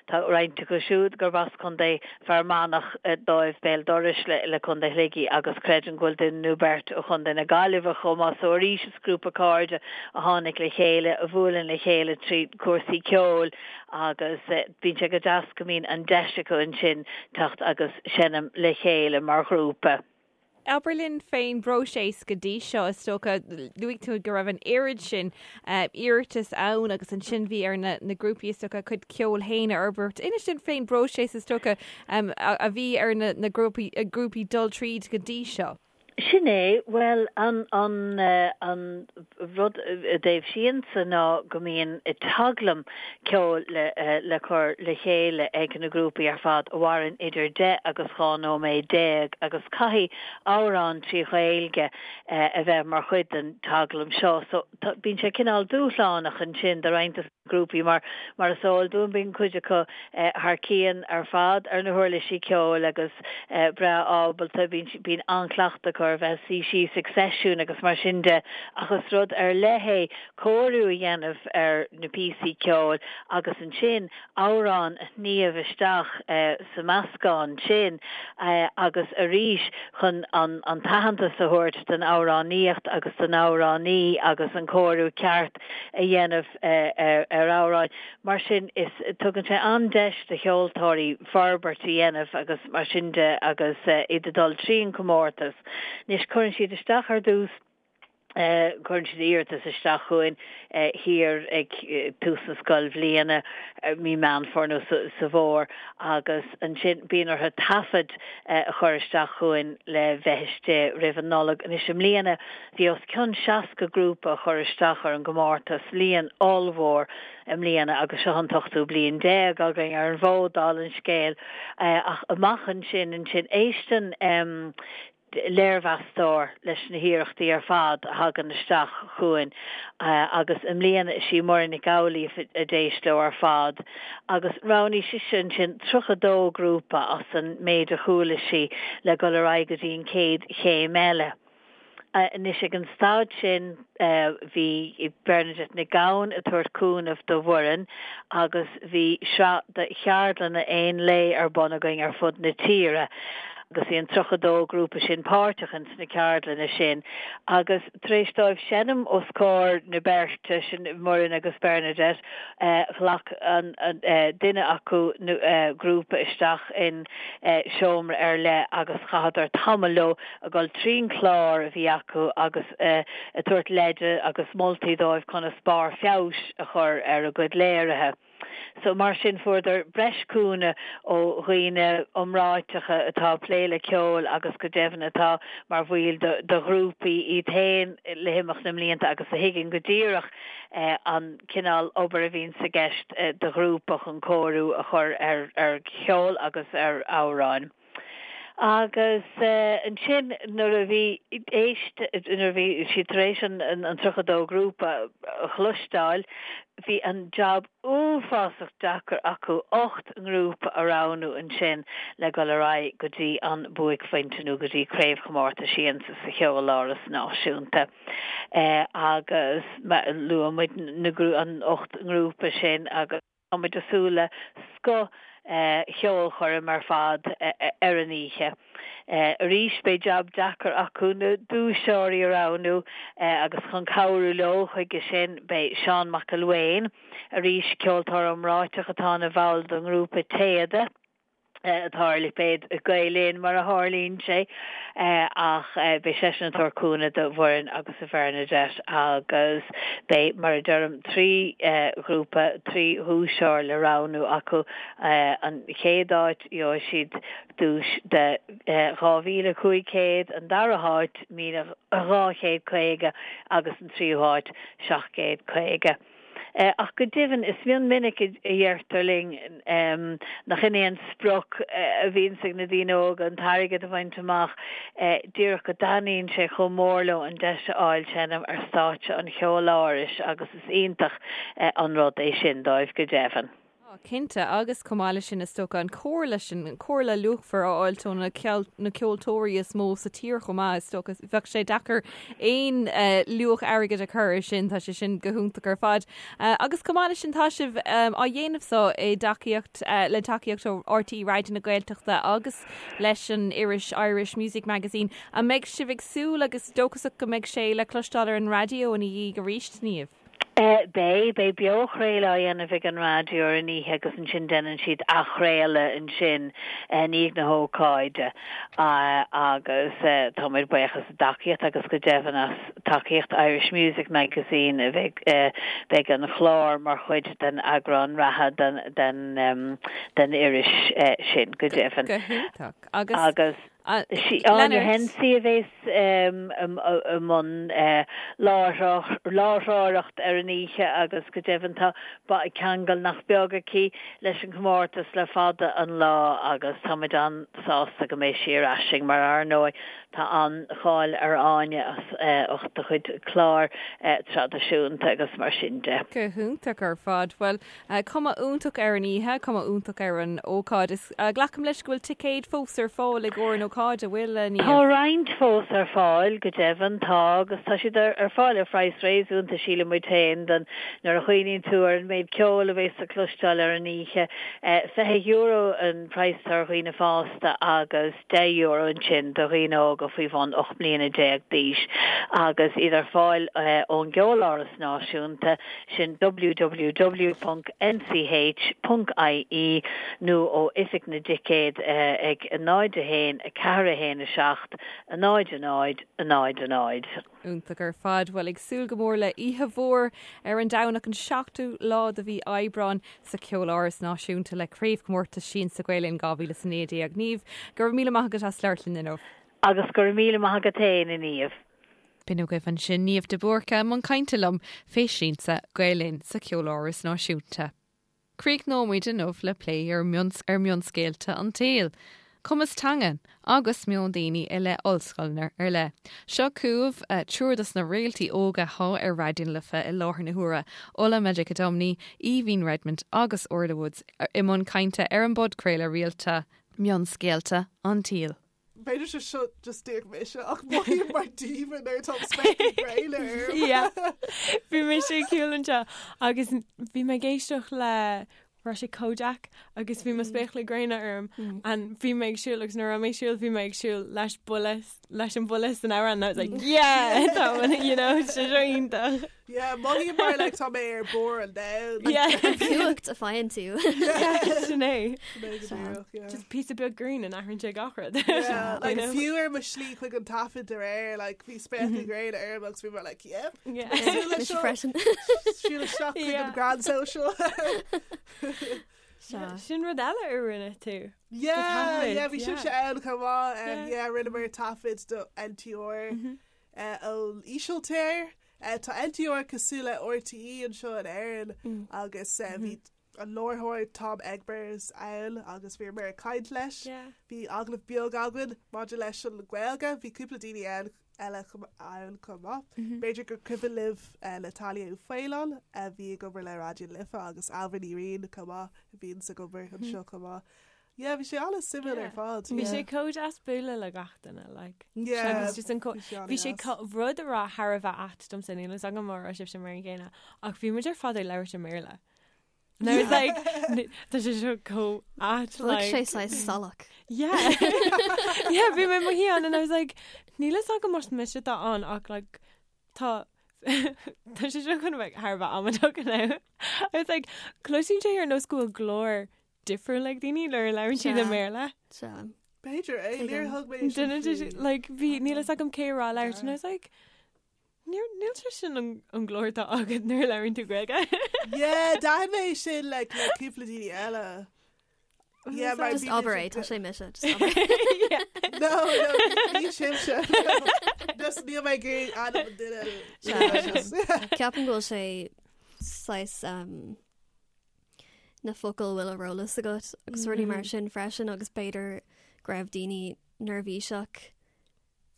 tá roinnt acu siúd gurb as Contae Fear Manach dóibh, béal dorais le Contae Shligigh agus creidim go bhfuil duine nó beirt ó Chontae na Gaillimhe chomh maith so arís is grúpa cairde a tháinig le chéile, a bhuaileann le chéile trí chúrsaí ceoil agus bíonn sé go deas go mbíonn an deis acu ansin teacht agus seinm le chéile mar ghrúpa. Abair linn fén bpróiseas go dtí seo, is dócha, luaigh tú go raibh an oiread sin iarratas ann agus ansin bhí ar na grúpaí is dócha a gcuid ceoil féin a fhorbairt. Inis dúinn fén bpróiseas is dócha a bhí ar na grúpaí dul tríd go dtí seo. Sin é, bhuel, an, an, an rud i dtaobh Siansa ná go mbíonn teaglaim ceoil le, le cur le chéile ag na grúpaí ar fad a mhaireann idir 10 agus 12 nóiméad agus caithfidh amhrán trí Ghaeilge a bheith mar chuid den teaglaim seo. So, tá, bíonn sé cineál dúshlánach ansin do roinnt de. grúpaí mar mar is eol dúinn bíonn cuid acu thar cionn ar fad ar na huirlisí ceoil agus breá ábalta, bíonn bíonn an-chleachtadh acu ar bheith suí síos ag seisiún agus mar sin de ach is rud ar leith é cóiriú a dhéanamh ar na píosaí ceoil agus ansin amhrán a shníomh isteach sa meascán sin agus arís chun an an t-aitheantas a thabhairt don amhránaíocht agus don amhránaí agus an cóiriú ceart a dhéanamh ar amhráin. Mar sin is tugann sé an-deis do cheoltóirí forbairt a dhéanamh agus mar sin de agus iad ag dul trín comórtas. Anois cuireann siad isteach ar dtús, cuireann siad iarratas isteach chugainn thiar ag tús na scoilbhliana, mí Meán Fómhair nó sa bhfómhar agus ansin bíonn orthu taifead a chur isteach chugainn le bheith istigh roimh an Nollaig. Anois i mbliana Bhí os cionn 60 grúpa a chuir isteach ar an gcomórtas, líon ollmhór i mbliana agus seo an t-ochtú bliain déag againn ar an bhfód, dála an scéil. Ach amach ansin, ansin, éisteann léirmheastóir leis na hiarrachtaí ar fad a thagann isteach chugainn agus i mbliana is í Muireann Nic Amhlaoibh a d'éist leo ar fad agus roghnaigh sise ansin 32 grúpa as an méid a chuala sí le dul ar aghaidh go dtí an chéad chéim eile. Anois ag an staid sin bhí Bernadette Nic Gabhann ag tabhairt cúnamh do Mhuireann agus bhí sraith de cheardlanna aon lae ar bun againn ar fud na tíre agus bhí an 32 grúpa sin páirteach ins na ceardlanna sin agus tar éis dóibh seinm os comhair na beirte sin, Muireann agus Bernadette, ghlac an duine acu grúpa isteach in seomra ar leith agus chaitheadar tamall leo ag dul trín chlár a bhí acu agus ag tabhairt leide agus moltaí dóibh conas barr feabhais a chur ar a gcuid léirithe. So mar sin fuaireadar breis cúnamh ó dhaoine iomráiteacha atá ag plé le ceol agus go deimhin atá mar bhaill de ghrúpaí iad féin le himeacht na mblianta agus a thuigeann go díreach an cineál obair a bhíonns i gceist do ghrúpa chun cóiriú a chur ar cheol agus ar amhráin. Agus ansin nuair a bhí éist, nuair a bhí siad tar éis an 32 grúpa a chloisteáil, bhí an jab uafásach deacair acu 8 ngrúpa a roghnú ansin le dul ar aghaidh go dtí an buaicphointe nó go dtí Craobhchomórtas Siansa sa Cheoláras Náisiúnta. Agus luaigh muid na, an 8 ngrúpa sin agus. Tá muid ag súil le scoth. cheolchoirm ar fad ar an oíche. Arís beidh jab deacair acu na duaiseoirí a roghnú agus chun cabhrú leo chuige sin beidh Seán Mac Ilwain, arís ceoltóir iomráiteach atá ina bhall den ngrúpa Téada, atá ar lipéad Gael Linn mar a tharlaíonn sé, ach beidh seisean ag tabhairt cúnamh do Mhuireann agus do Bhernadette agus beidh, mar a deirim, 3 ghrúpa, 3 dhuaiseoir le roghnú acu. An chéad áit, gheobhaidh siad duais de 2,500, an dara háit, 1,250 agus an tríú háit, 750. Ach go deimhin, is mion minic a deirtear linn nach in é an sprioc a bhíonns ag na daoine óga, an t-airgead a bhaint amach, díreach go dtaitníonn sé chomh mór leo an deis a fháil seinm ar stáitse an Cheolárais agus is iontach an rud é sin dóibh, go deimhin. Tá, cinnte, agus chomh maith leis sin, is dócha, an comhairle sin, an comhairle luachmhar a fháilt ó na na ceoltóirí is mó sa tír chomh maith, is dócha, bheadh sé deacair aon luach airgid a chur air sin, tá sé sin go hiontach ar fad. Agus chomh maith leis sin, tá sibh á dhéanamh so i dtacaíocht, le tacaíocht ó RTÉ Raidió na Gaeltachta agus leis an iris Irish Music Magazine. An mbeidh sibh ag súil agus dóchasach go mbeidh sé le cloisteáil ar an raidió ina dhiaidh arís, Niamh? Beidh, beidh beochraoladh á dhéanamh ag an raidió ar an oíche agus ansin déanann siad athchraoladh ansin i ndiaidh na hócáide agus táimid buíoch as a dtacaíocht agus go deimhin as tacaíocht Irish Music Magazine bheidh beidh an clár mar chuid den eagrán reatha den den den iris sin go deimhin. Go hiontach. Agus. Sí Áine Hensey a bhéas i mbun láithreoireacht ar an oíche agus go deimhin tá ceangal nach beag aici leis an chomórtas le fada an lá agus táimid an-sásta go mbeidh sí ar ais againn mar ar ndóigh tá an-cháil ar Áine as ucht a cuid clár traidisiúnta agus mar sin de. Go hiontach ar fad. Bhuel, Cuma iontach ar an oíche, cuma iontach ar an ócáid. Is glacaim leis go bhfuil ticéid fós ar fáil i gcomhair an ócáid, an bhfuil, a Niamh? Tá roinnt fós ar fáil, go deimhin, tá, agus tá siad ar fáil ar phraghas réasúnta, síleann muid féin, don, nuair a chuimhníonn tú ar an méid ceoil a bheas le cloisteáil ar an oíche. €20 an praghas atá ar dhaoine fásta agus €10 ansin do dhaoine óga faoi bhun 18 mbliana d'aois, agus iad ar fáil ón gCeoláras Náisiúnta. sin www.nch.ie nó ó Oifig na dTicéad ag 0 1 4 1 7 0 0 0 0. Iontach ar fad. Bhuel, ag súil go mór le oíche mhór ar an Domhnach an 7ú lá de mhí Aibreáin sa Cheoláras Náisiúnta le Craobhchomórtas Siansa Gael Linn 2019. Niamh, go raibh míle maith agat as labhairt linn inniu. Agus go raibh míle maith agat féin, a Niamh. B'in agaibh ansin Niamh de Búrca i mbun cainte liom fé Siansa Gael Linn sa Cheoláras Náisiúnta. Críochnóimid inniu le plé ar ar mhionscéalta an tsaoil, cumas teanga agus meon daoine i leith ollscoileanna ar leith. Seo chugaibh triúr dos na réaltaí óga athá ar Raidió na Life i láthair na huaire, Ola Majekodunmi, Aoibhín Redmond agus Orla Woods i mbun cainte ar an bpodchraoladh rialta Mionscéalta an tSaoil. B'fhéidir sé seo just díreach mise ach mothaím mar demon nuair atá spéaclaí gréine orm. Yeah. Bhí mise ag siúl anseo agus bhí mé ag éisteacht le raibh sé Kojaque agus bhí mo spéaclaí gréine orm and bhí mé ag siúl agus nuair a raibh mé ag siúl bhí mé ag siúl leis buille leis an buille san amhrán and I was like yeah tá you know sé seo iontach. Yeah, mothaím mar like tá mé ar bharr an domhain. Yeah. Cumhacht a faigheann tú. Sin é. Just píosa beag green and athraíonn sé gach rud. Yeah, like fiú ar mo slí chuig an taifead aréir, like bhí spéaclaí gréine orm agus bhí mé like yep. Yeah. Mise freisin. Siúl isteach chuig an Grand Social. Sin rud eile a rinne tú. Yeah, yeah, bhí sibhse ann chomh maith. Yeah, rinneamar taifead do NTR ón Ísiltír. Tá NTR cosúil le RTÉ anseo in Éirinn agus bhí an láithreoir Tom Egbers ann agus bhíomar ag caint leis. Bhí agallamh beag againn maidir leis an Ghaeilge, bhí cúpla daoine ann eile ann chomh maith. B'fhéidir gur cuimhin libh Natalia Uí Faoláin a bhí ag obair le Raidió na Life agus Ailbhe Ní Riain chomh maith a bhíonns ag obair anseo chomh maith. Yeah, bhí sé an-suimiúil ar fad. Bhí sé chomh deas bualadh le gach duine, like. Yeah. Agus just an co- bhí sé rud a raibh thar a bheith ait domsa, níl fhios agam an raibh sibhse mar an gcéanna, ach bhí muid ar fad ag labhairt i mBéarla. And I was like, tá sé seo chomh ait like. Bheadh sé saghas salach. Yeah. Yeah, bhí mé i mo shuí ann and I was like, níl fhios agam más mise atá ann ach like tá tá sé seo chun a bheith thar a bheith amaideach now. I was like, cloisim sé ar nós go bhfuil glór difriúil ag daoine nuair a labhrann siad i mBéarla. Sea. B'fhéidir é, níor thug mé sin Duine de faoi. like bhí níl fhios agam cé a raibh ag labhairt and I was like, Níl níl sé sin an an glór atá agat nuair a labhraíonn tú Gaeilge. Yeah, d'aithin mé sin like le cúpla daoine eile. Yeah, mar Just bhí abair é, tá sé mise, just abair é. Yeah. No, no, ní sibhse. Just níl mé ag iarraidh ainm an duine. Sea. Ceapaim go bhfuil sé saghas um, na focail a bhfuil ar eolas agat agus rudaí mar sin freisin agus b'fhéidir go raibh daoine neirbhíseach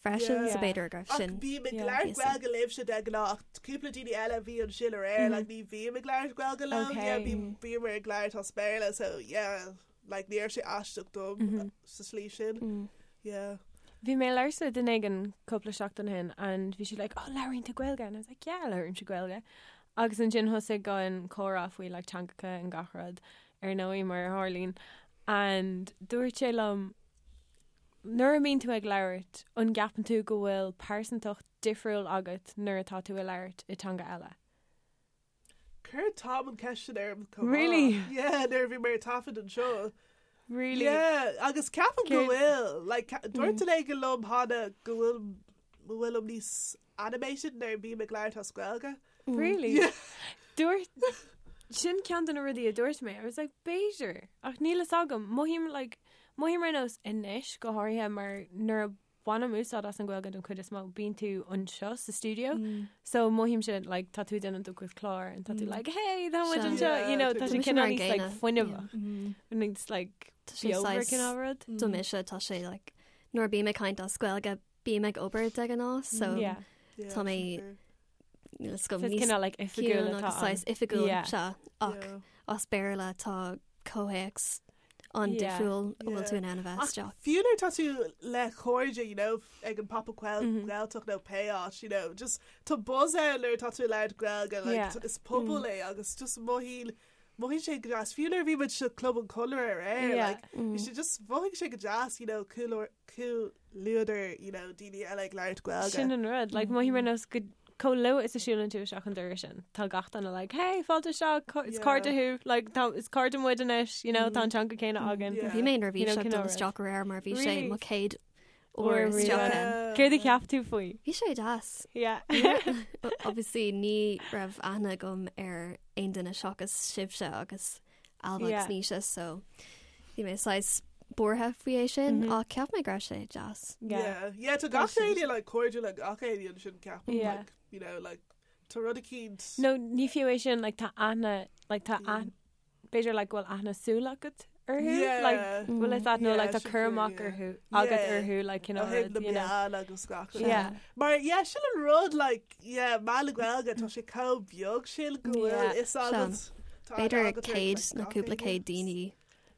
freisin so b'fhéidir go raibh Ach sin bím ag labhairt píosa. Gaeilge libhse de ghnáth ach cúpla daoine eile a bhí ansin aréir like ní bhím ag labhairt Gaeilge leo yeah bím bím ag labhairt as Béarla so yeah like ní raibh sé aisteach dom sa slí sin yeah. Bhí mé ag labhairt le duine éigin cúpla seachtain ó shin and bhí siad like oh labhraíonn tú Gaeilge and I was like yeah labhraímse Gaeilge agus ansin thosaigh an comhrá faoi like teangacha and gach rud ar ndóigh mar a tharlaíonn and dúirt sé liom Nuair a bhíonn tú ag labhairt, an gceapann tú go bhfuil pearsantacht difriúil agat nuair atá tú ag labhairt i teanga eile? Chuir Tom an ceist sin orm chomh maith. Really? Yeah, nuair a bhí mé ar taifead anseo. Really? Yeah, agus ceapaim go Céard- bhfuil. Like, dúirt duine éigin liom cheana go bhfuil go bhfuilim níos animated nuair a bhím ag labhairt as Gaeilge. Really? Yeah. Dúirt sin ceann de na rudaí a dúirt mé. I was like, b'fhéidir, ach níl fhios agam. Mothaím like, mothaím ar nós anois go háirithe mar nuair a bhainim úsáid as an Ghaeilge don chuid is mó, bíonn tú anseo sa stiúideo. So mothaímse like tá tú ag déanamh do chuid clár and tá tú like, hey, tá muid Sea. anseo, you know, tá sé Tá mise cineál mar an níos like gcéanna. fuinneamhach. Níos like Tá sé beomhar saghas- cineál rud. Do mise tá sé like nuair a bím ag caint as Gaeilge bím ag obair de ghnáth so Yeah. Yeah, Tá mé sin fíor. níl fhios agam So it's níos cineál like oifigiúil ciúin atá agus ann. saghas oifigiúil Yeah. sea ach Yeah. as Béarla tá comhthéacs an-difriúil a bhfuil tú in ann a bheith Ach isteach. fiú nuair atá tú le cairde, you know, ag an Pop-up Gaeltacht nó pé áit, you know, just tá buzz ann nuair atá tú ag labhairt Gaeilge, like, Yeah. is pobal é agus just mothaíonn mothaíonn sé go deas. Fiú nuair a bhí muid sa Club an Chonradh aréir, Yeah. like, bhí sé just mhothaigh sé go deas, you know, comhluadar, you know, daoine eile ag labhairt Gaeilge. Sin an rud, like, mothaím ar nós go chomh luath is a siúlann tú isteach an doras sin, tá gach duine like, hey, fáilte isteach, is cairde thú, like, tá, is cairde muid anois, you know, tá an teanga céanna againn. Yeah. Bhí mé You know, neirbhíseach cineál dul rud. isteach aréir mar bhí sé Really? mo chéad Uair uair isteach riamh. ann. Céard a cheap tú faoi? Bhí sé deas. Yeah. Obviously ní raibh aithne agam ar aon duine seachas sibhse agus Alba Yeah. agus Naoise so bhí mé saghas buartha faoi é sin ach cheap mé go raibh sé deas. Yeah. Yeah, yeah, tá gach éinne like cairdiúil le gach éinne ansin ceapaim, Yeah. like, you know, like, tá rud eicínt. No, ní fiú é sin, like, tá aithne, like, tá aithne, b'fhéidir, like, go bhfuil aithne súl agat orthu, Yeah. like, bhfuil fhios agat, nó, Yeah, like, tá sin cur fíor, amach yeah. orthu, agat Yeah. orthu, like, you know, Ó thaobh na you know. meán agus gach rud. Yeah. Mar, yeah, sin an rud, like, yeah, meán na Gaeilge, tá sé chomh beag sin go bhfuil Yeah. fhios agat. Tá aithne B'fhéidir agat ar, céad like, nó gach cúpla éinne. céad daoine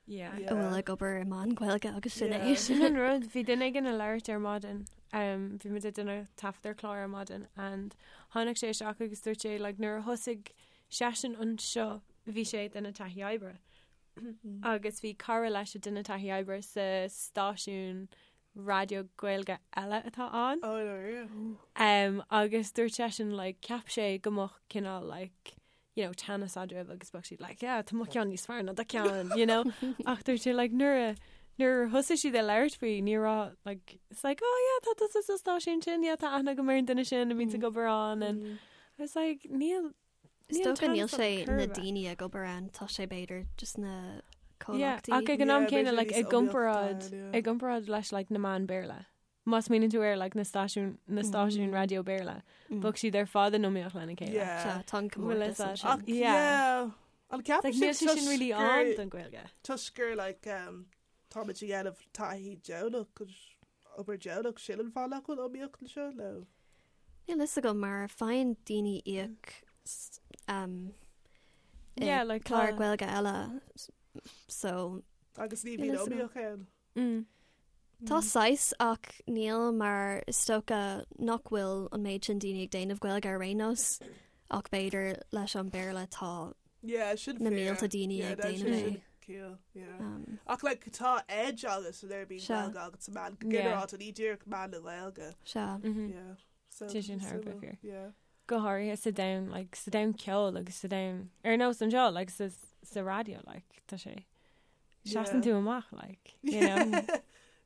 Yeah. Yeah. a bhfuil ag obair i meán Gaeilge agus sin Yeah. é. Sin an rud, bhí duine éigin ag labhairt ar maidin, um, bhí muid ag déanamh taifead ar chlár ar maidin and tháinig sé isteach agus dúirt sé, like, nuair a thosaigh seisean anseo, bhí sé ag déanamh taithí oibre. Agus bhí cara leis ag déanamh taithí oibre sa stáisiún raidió Gaeilge eile atá ann. Oh, no, yeah. Um, agus dúirt seisean, like, cheap sé go mbeadh cineál, like, you know, teannas eadraibh agus bheadh siad like, yeah, tá mo cheann níos fearr ná do cheann, you know? Ach dúirt sé, like, nuair a nuair a thosaigh siad ag labhairt faoi, ní raibh, like, it's like, oh yeah, tá tusa sa stáisiún sin, yeah, tá aithne agam ar an duine sin a bhíonns ag obair ann, and I was like, níl, Is níl dócha níl teannas sé ann chor na ar bith. daoine ag obair ann, tá sé b'fhéidir just na Yeah, comhlachtaí. ach ag an am Yeah, céanna, b'fhéidir like, níos i gcomparáid, iomaíochta, yeah. i gcomparáid leis, like, na meáin Béarla. Má smaoiníonn tú ar, like, na stáisiún, na stáisiúin raidió Béarla, bheadh siad ar fad in iomaíocht lena chéile. Yeah. Sea, tá an Bhfuil comórtas fhios agat? ansin. Ach, Yeah. yeah. An Like, ceapann níl sibh sé sin really toisc ann gur- don Ghaeilge. toisc gur, like, um, táimid ag déanamh taithí deonach agus obair deonach, sin an fáth nach bhfuil iomaíocht anseo, nó? Níl fhios agam mar faigheann daoine íoc s- um, i Yeah, like, clár tá- Gaeilge eile, s- so Agus ní Níl bhíonn fhios agam. iomaíocht ann. Mm. Tá saghas ach níl mar is dócha nach bhfuil an méid sin daoine ag déanamh Gaeilge ar aon nós ach b'fhéidir leis an Béarla tá. Yeah, sin na mílte daoine ag déanamh é. Ciall, yeah. Um, Ach like, tá edge agat nuair a bhíonn Gaeilge agat sa meán, go ginearálta ní díreach meán na Gaeilge. Sea. Mm-hmm. Yeah. So, Tá sin thar a bheith fíor. Yeah. Go háirithe sa domhan, like, sa domhan ceoil agus sa domhan ar nós anseo, like, sa, sa raidió, like, tá sé seasann tú amach, like, you know.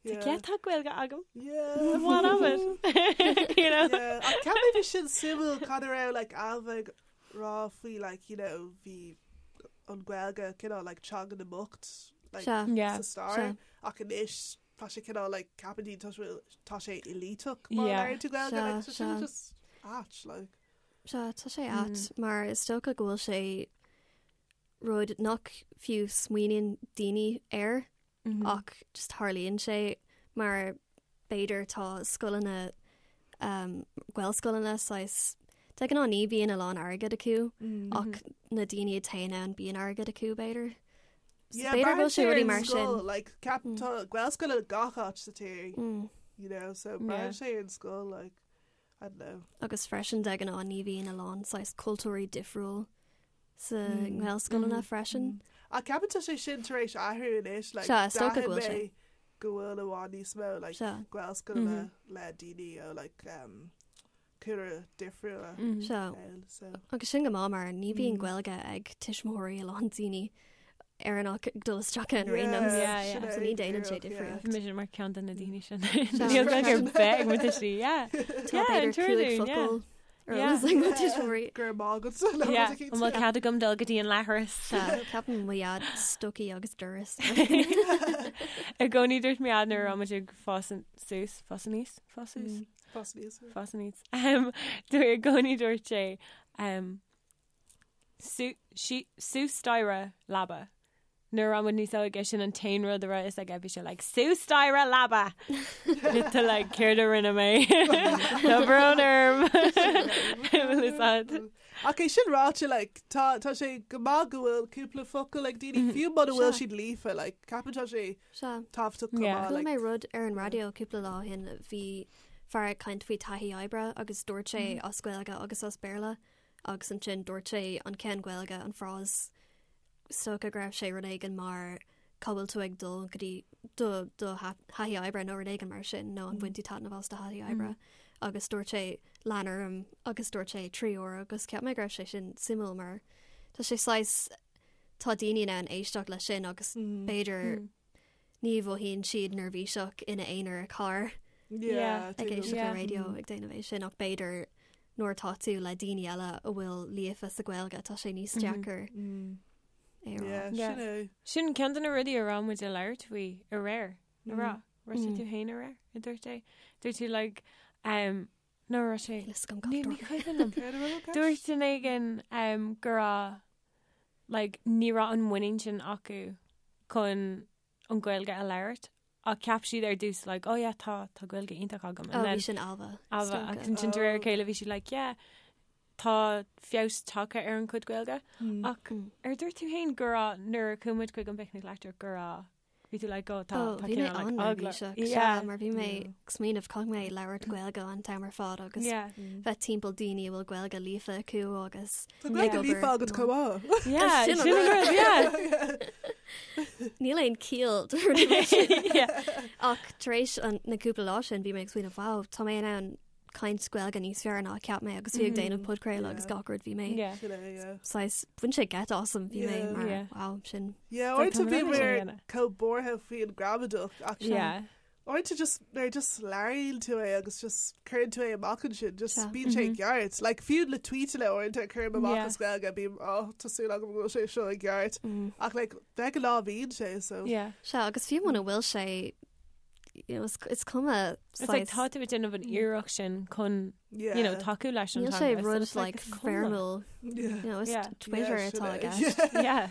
Yeah. Yeah, tá Gaeilge agam. Yeah. What of it? you know? Yeah. Ach ceapaim bhí sin suimiúil cad a raibh like Ailbhe ag rá faoi like you know bhí an Ghaeilge cineál like teanga na mbocht like Sea. Yeah. sa stair Sea. ach anois tá sé cineál like ceapann daoine tá sé tá sé éliteach má Yeah. labhraíonn tú Gaeilge Sea, like so sin sea. just ait like Sea, tá sé ait mar is dócha go bhfuil sé rud nach fiú smaoiníonn daoine air ach just tarlaíonn sé mar b'fhéidir tá scoileanna um, Gaelscoileanna saghas de ghnáth ní bhíonn a lán airgead acu ach na daoine a théann ann bíonn airgead acu b'fhéidir. So Yeah, b'fhéidir go bhfuil sé rudaí braitheann mar sé ar an sin. scoil, like ceap tá Gaelscoil i gach áit sa tír you know so braitheann sé ar an scoil like I don't know. Agus freisin de ghnáth ní bhíonn a lán saghas cultúirí difriúil sa nGaelscoileanna freisin. Ach ceapann tá sé sin tar éis athrú anois like Sea, is dócha go d'aithin bhfuil sé. mé go bhfuil i bhfad níos mó like Sea. Gaelscoileanna le daoine ó like um, cúlra difriúla Sea. ann so. Agus sin go maith mar ní bhíonn Gaeilge ag tuismitheoirí a lán daoine Éireannach ag dul isteach ann ar aon nós. Yeah, yeah. So ní déanann sé díreach, yeah. difríocht. Mise mar ceann de na daoine sin. Níl Gaeilge ar bith ag mo tuistí, yeah. Tá Yeah, b'fhéidir an cúig tuairlín, yeah. focal ar Yeah. eolas ag mo tuismitheoirí. Go raibh maith agat le Yeah, rud eicínt. an bhfuil cead agam dul go dtí an leithreas? Sea, ceapaim mo dhaid stocaí agus doras. I gcónaí dúirt mo dhaid nuair a raibh muid ag fás suas, fás aníos, fás suas, Fás aníos. fás aníos. Um, dúirt i gcónaí dúirt sé um, Suas staighre leaba. Nuair a raibh muid níos óige sin an t-aon rud a raibh fhios aige bhí sé like suas staighre leaba! Tá like céard a rinne mé? Tá brón orm! Bhfuil fhios a'd? Ach é sin ráite like tá tá sé go maith go bhfuil cúpla focal ag daoine fiú muna bhfuil siad líofa like ceapann tá sé Sea. tábhachtach go Yeah. maith Chuala like mé rud ar an raidió cúpla lá ó shin bhí fear ag caint faoi taithí oibre agus dúirt sé as Gaeilge agus as Béarla agus ansin dúirt sé an ceann Gaeilge, an frás, is dócha go raibh sé rud éigin mar cá bhfuil tú ag dul go dtí do do thaithí oibre nó rud éigin mar sin nó an bhain tú taitneamh as do thaithí oibre agus dúirt sé lean orm agus dúirt sé 3 uair agus cheap mé go raibh sé sin suimiúil mar tá sé saghas tá daoine in ann éisteacht leis sin agus b'fhéidir Ní mhothaíonn siad neirbhíseach ina aonar i carr ag éisteacht le raidió ag déanamh é sin ach b'fhéidir nuair atá tú le daoine eile a bhfuil líofa sa Ghaeilge tá sé níos deacair é a rá. Sin é. Sin ceann de na rudaí a raibh muid ag labhairt faoi aréir, a rá. Raibh sé tú féin aréir, a dúirt é. Dúirt tú like, um, nó raibh sé... Ní ní cuimhin liom. Dúirt duine éigin um, go raibh like, ní raibh an muinín sin acu chun an Ghaeilge a labhairt ach cheap siad ar dtús like, oh yeah, tá tá Gaeilge iontach agam. Oh, bhí sin Ailbhe. Ailbhe agus ansin de réir a chéile bhí siad like, yeah, tá feabhas tagtha ar an chuid Gaeilge. Ach ar dúirt tú féin go raibh nuair a chuaigh muid chuig an bPicnic Leictreach go raibh Bhí tú like, oh, tá, Oh, tá bhí mé cineál, like, eagla. an-neirbhíseach, Yeah. sea, mar bhí mé ag smaoineamh caithfidh mé labhairt Gaeilge an t-am ar fad agus Yeah. bheith timpeall daoine a bhfuil Gaeilge líofa acu agus Tá Gaeilge ag líofa obair agat chomh maith. Yeah, Sin an sin an rud. rud, yeah. Níl aon ciall do rudaí mar sin. Yeah. Ach tar éis an- na cúpla lá sin bhí mé ag smaoineamh, wow, tá mé in ann caint Gaeilge níos fearr ná a cheap mé agus bhí ag déanamh podchraoladh agus gach rud bhí mé Yeah. Sin é, yeah. saghas bhain sé geit asam bhí mé Yeah. mar Yeah. wow sin Yeah, Like, uaireanta tá bhí mé mé déanamh. chomh buartha faoin gramadach ach Yeah. uaireanta just nuair just labhraíonn tú é agus just cuireann tú é amach ansin just Sea. bíonn sé ceart. Like fiú le tweetanna uaireanta cuirim amach Yeah. as Gaeilge bím oh tá súil agam go bhfuil sé seo i gceart. Ach like de ghnáth bíonn sé so. Yeah. Sea agus fiú muna bhfuil sé you know, is, is cuma It's like tá tú ag déanamh an iarracht sin chun Yeah. you know, tacú leis an Níl sé teanga, so rud it's like, like is cuma. foirmiúil Yeah. you know, is Yeah. Twitter Yeah, sin atá é. aige. Yeah.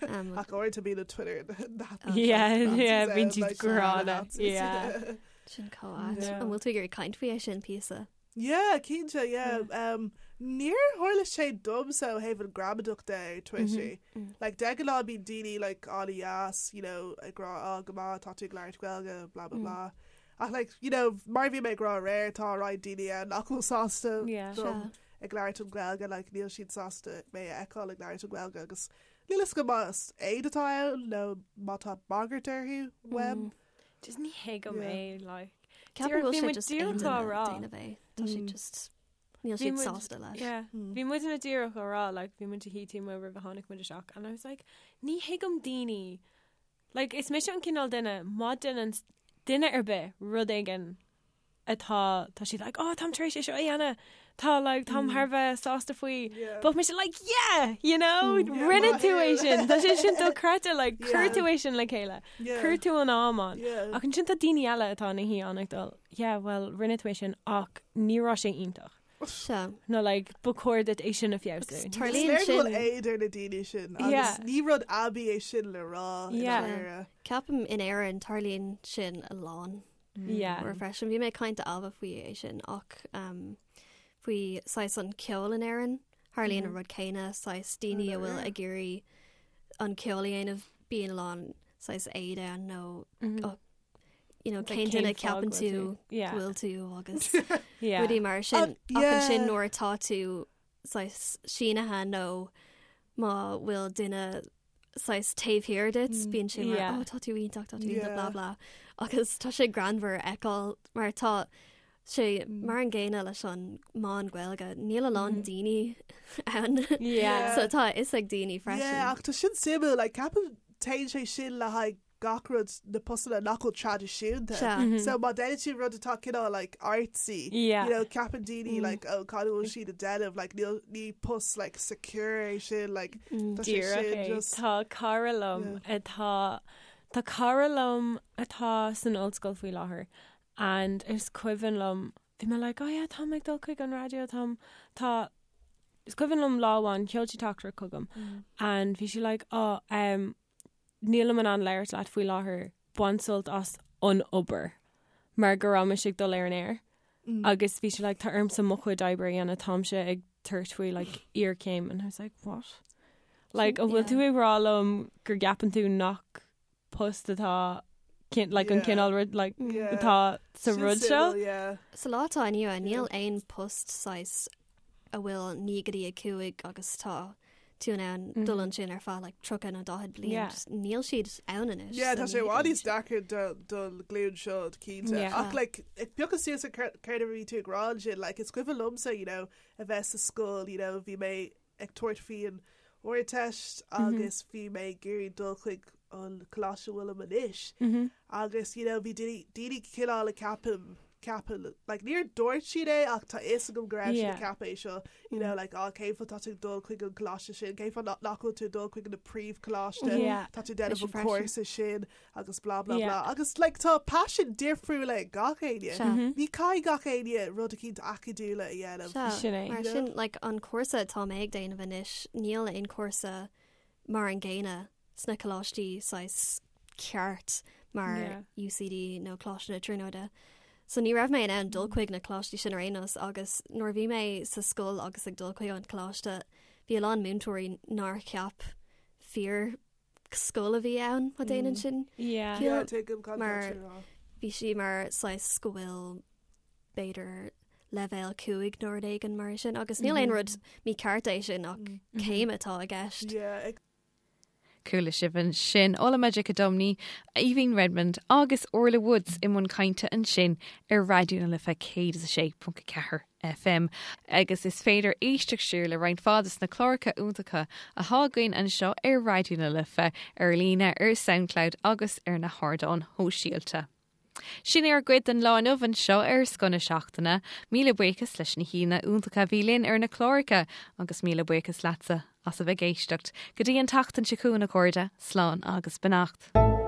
Um, Ach uaireanta bíonn Twitter Oh, Yeah, yeah, Nazis bíonn ann, siad like, gránna. Nazis. Yeah. Sin chomh ait. Yeah. An bhfuil tú ag iarraidh caint faoi é sin píosa? Yeah, cinnte, yeah. Um, níor tharla sé domsa ó thaobh an gramadach de ar Twitter. Like, de ghnáth bíonn daoine like, an-deas, you know, ag rá, oh, go maith, tá tú ag labhairt Gaeilge, blah, blah, blah. Ach like, you know, mar bhí mé ag rá aréir, tá roinnt daoine ann nach bhfuil sásta Yeah. dom. ag labhairt an Ghaeilge like níl siad sásta mé a fheiceáil ag labhairt an Ghaeilge agus níl fhios agam más éad atá ann nó má tá bagairt orthu uaim. Just ní thuigim é like. Ceapaim go bhfuil sé just aon duine ag déanamh é. Tá sé just níl siad sásta leis. Yeah. Bhí muid ina díreach á rá like bhí muid ag tí roimh a tháinig muid isteach and I was like ní thuigim daoine like is mise an cineál duine má déanann duine ar bith rud éigin atá tá siad like oh táim tar éis é seo a dhéanamh tá like táim thar a bheith sásta faoi Yeah. Bheadh mise like yeah you know Yeah, rinne tú é sin tá sé sin dochreidte like chuir tú é sin le chéile Yeah. chuir tú an am ann Yeah. ach ansin tá daoine eile atá ina shuí ann ag dul yeah well rinne tú é sin ach ní raibh sé iontach Sea. nó like ba chóir duit é sin a feabhsú. Is Tarlaíonn léir go bhfuil sin. éad ar na daoine sin agus Yeah. ní rud aibí é sin le rá i Yeah. ndáiríre. Ceapaim in Éirinn tarlaíonn sin a lán. Yeah. Uair freisin. Bhí mé ag caint le Ailbhe faoi é sin ach um, faoi saghas an ceol in Éirinn. Tharlaíonn an rud céanna saghas daoine a bhfuil ag iarraidh an ceol a dhéanamh bíonn a lán saghas éad ann nó oh, you know, Like, cén duine cén fáth ceapann go bhfuil tú tú- Yeah. go bhfuil tú agus Yeah. rudaí mar sin. Uh, Ach ansin yeah. nuair atá tú saghas sínithe nó má bhfuil duine saghas taobh thiar duit, bíonn sé mar Yeah. oh tá tú iontach, tá tú iontach, Yeah. blah blah. Agus tá sé greannmhar a fheiceáil mar tá sé mar an gcéanna leis an meán Gaeilge, níl a lán daoine ann. Yeah. So tá a fhios ag daoine freisin. Yeah, ach tá sin suimiúil, like, ceapaim téann sé sin le haghaidh gach rud na postanna nach bhfuil traidisiúnta. Sea. So má déanann tú rud atá cineál like artsy, Yeah. you know, ceapann daoine like oh cad a bhfuil siad ag déanamh, like níl ní post like secure é sin, like tá sé Díreach sin é. just Tá cara liom atá Tá cara liom atá san ollscoil faoi láthair and is cuimhin liom bhí mé like oh yeah táim ag dul chuig an raidió táim tá is cuimhin liom lá amháin sheol sí teachtaireacht chugam and bhí sí like oh um, nílim in ann labhairt leat faoi láthair bain sult as an obair mar go raibh mise ag dul ar an aer agus bhí sí like tá ormsa mo chuid oibre a dhéanamh táimse ag tabhairt faoi like iarchéim and I was like what? Like an bhfuil tú ag rá liom gur gceapann tú nach post atá cin- like an Yeah. cineál rud like Yeah. atá sa Sin rud seo? suimiúil, yeah. Sa lá atá inniu ann, níl aon post saghas a bhfuil 9 go dtí 5 agus tá tú in ann dul ansin ar feadh like 30 nó 40 bliain. Yeah. Just Níl siad ann anois. Yeah, so tá sé ní i bhfad níos thuigim sin. deacra do don ghlúin seo cinnte. Yeah. Ach like ag piocadh suas ar céard céard a bhí tú ag rá ansin, like is cuimhin liomsa, you know, a bheith sa scoil, you know, bhí mé ag tabhairt faoi an Ardteist agus bhí mé ag iarraidh dul chuig an coláiste a bhfuilim anois. Agus you know, bhí daoine daoine cineál ag ceapadh ceapadh like níor dúirt siad é ach tá fhios agam go raibh siad ag Yeah. ceapadh é seo you know like á cén fáth tá tú ag dul chuig an coláiste sin cén fáth nach nach bhfuil tú ag dul chuig na príomhcholáiste Yeah. tá tú déanamh Mise an freisin. cúrsa sin agus blah blah Yeah. blah agus like tá paisean difriúla ag gach éinne Sea. ní caithfidh gach éinne rud eicínt acadúla a dhéanamh Sea, Sin é. Mar sin like an cúrsa atá mé ag déanamh anois, níl aon cúrsa mar an gcéanna sna coláistí saghas ceart mar Yeah. UCD nó Coláiste na Tríonóide. So ní raibh mé in ann dul chuig na coláistí sin ar aon nós agus nuair a bhí mé sa scoil agus ag dul chuig an coláiste, bhí a lán múinteoirí nár cheap fíor scoil a bhí ann má déanann sin Yeah. Yeah, ciall. tuigim cad Mar- tá tú ag rá. Bhí sí mar saghas go bhfuil b'fhéidir leibhéal 5 nó rud éigin mar sin agus níl aon rud mícheart é sin ach céim atá i gceist. Yeah, ag Chuala sibh ansin Ola Majekodunmi, Aoibhín Redmond agus Orla Woods i mbun cainte ansin ar Raidió na Life 106.4 FM. Agus is féidir éisteacht siar le roinnt mhaith de na cláracha iontacha atá againn anseo ar Raidió na Life ar líne ar SoundCloud agus ar na hardáin shóisialta. Sin é ár gcuid den lá inniu anseo ar Scoth na Seachtaine, míle buíochas leis na haíonna iontacha a bhí linn ar na cláracha agus míle buíochas leatsa as a bheith ag éisteacht. Go dtí an tseachtain seo chugainn a chairde, slán agus beannacht.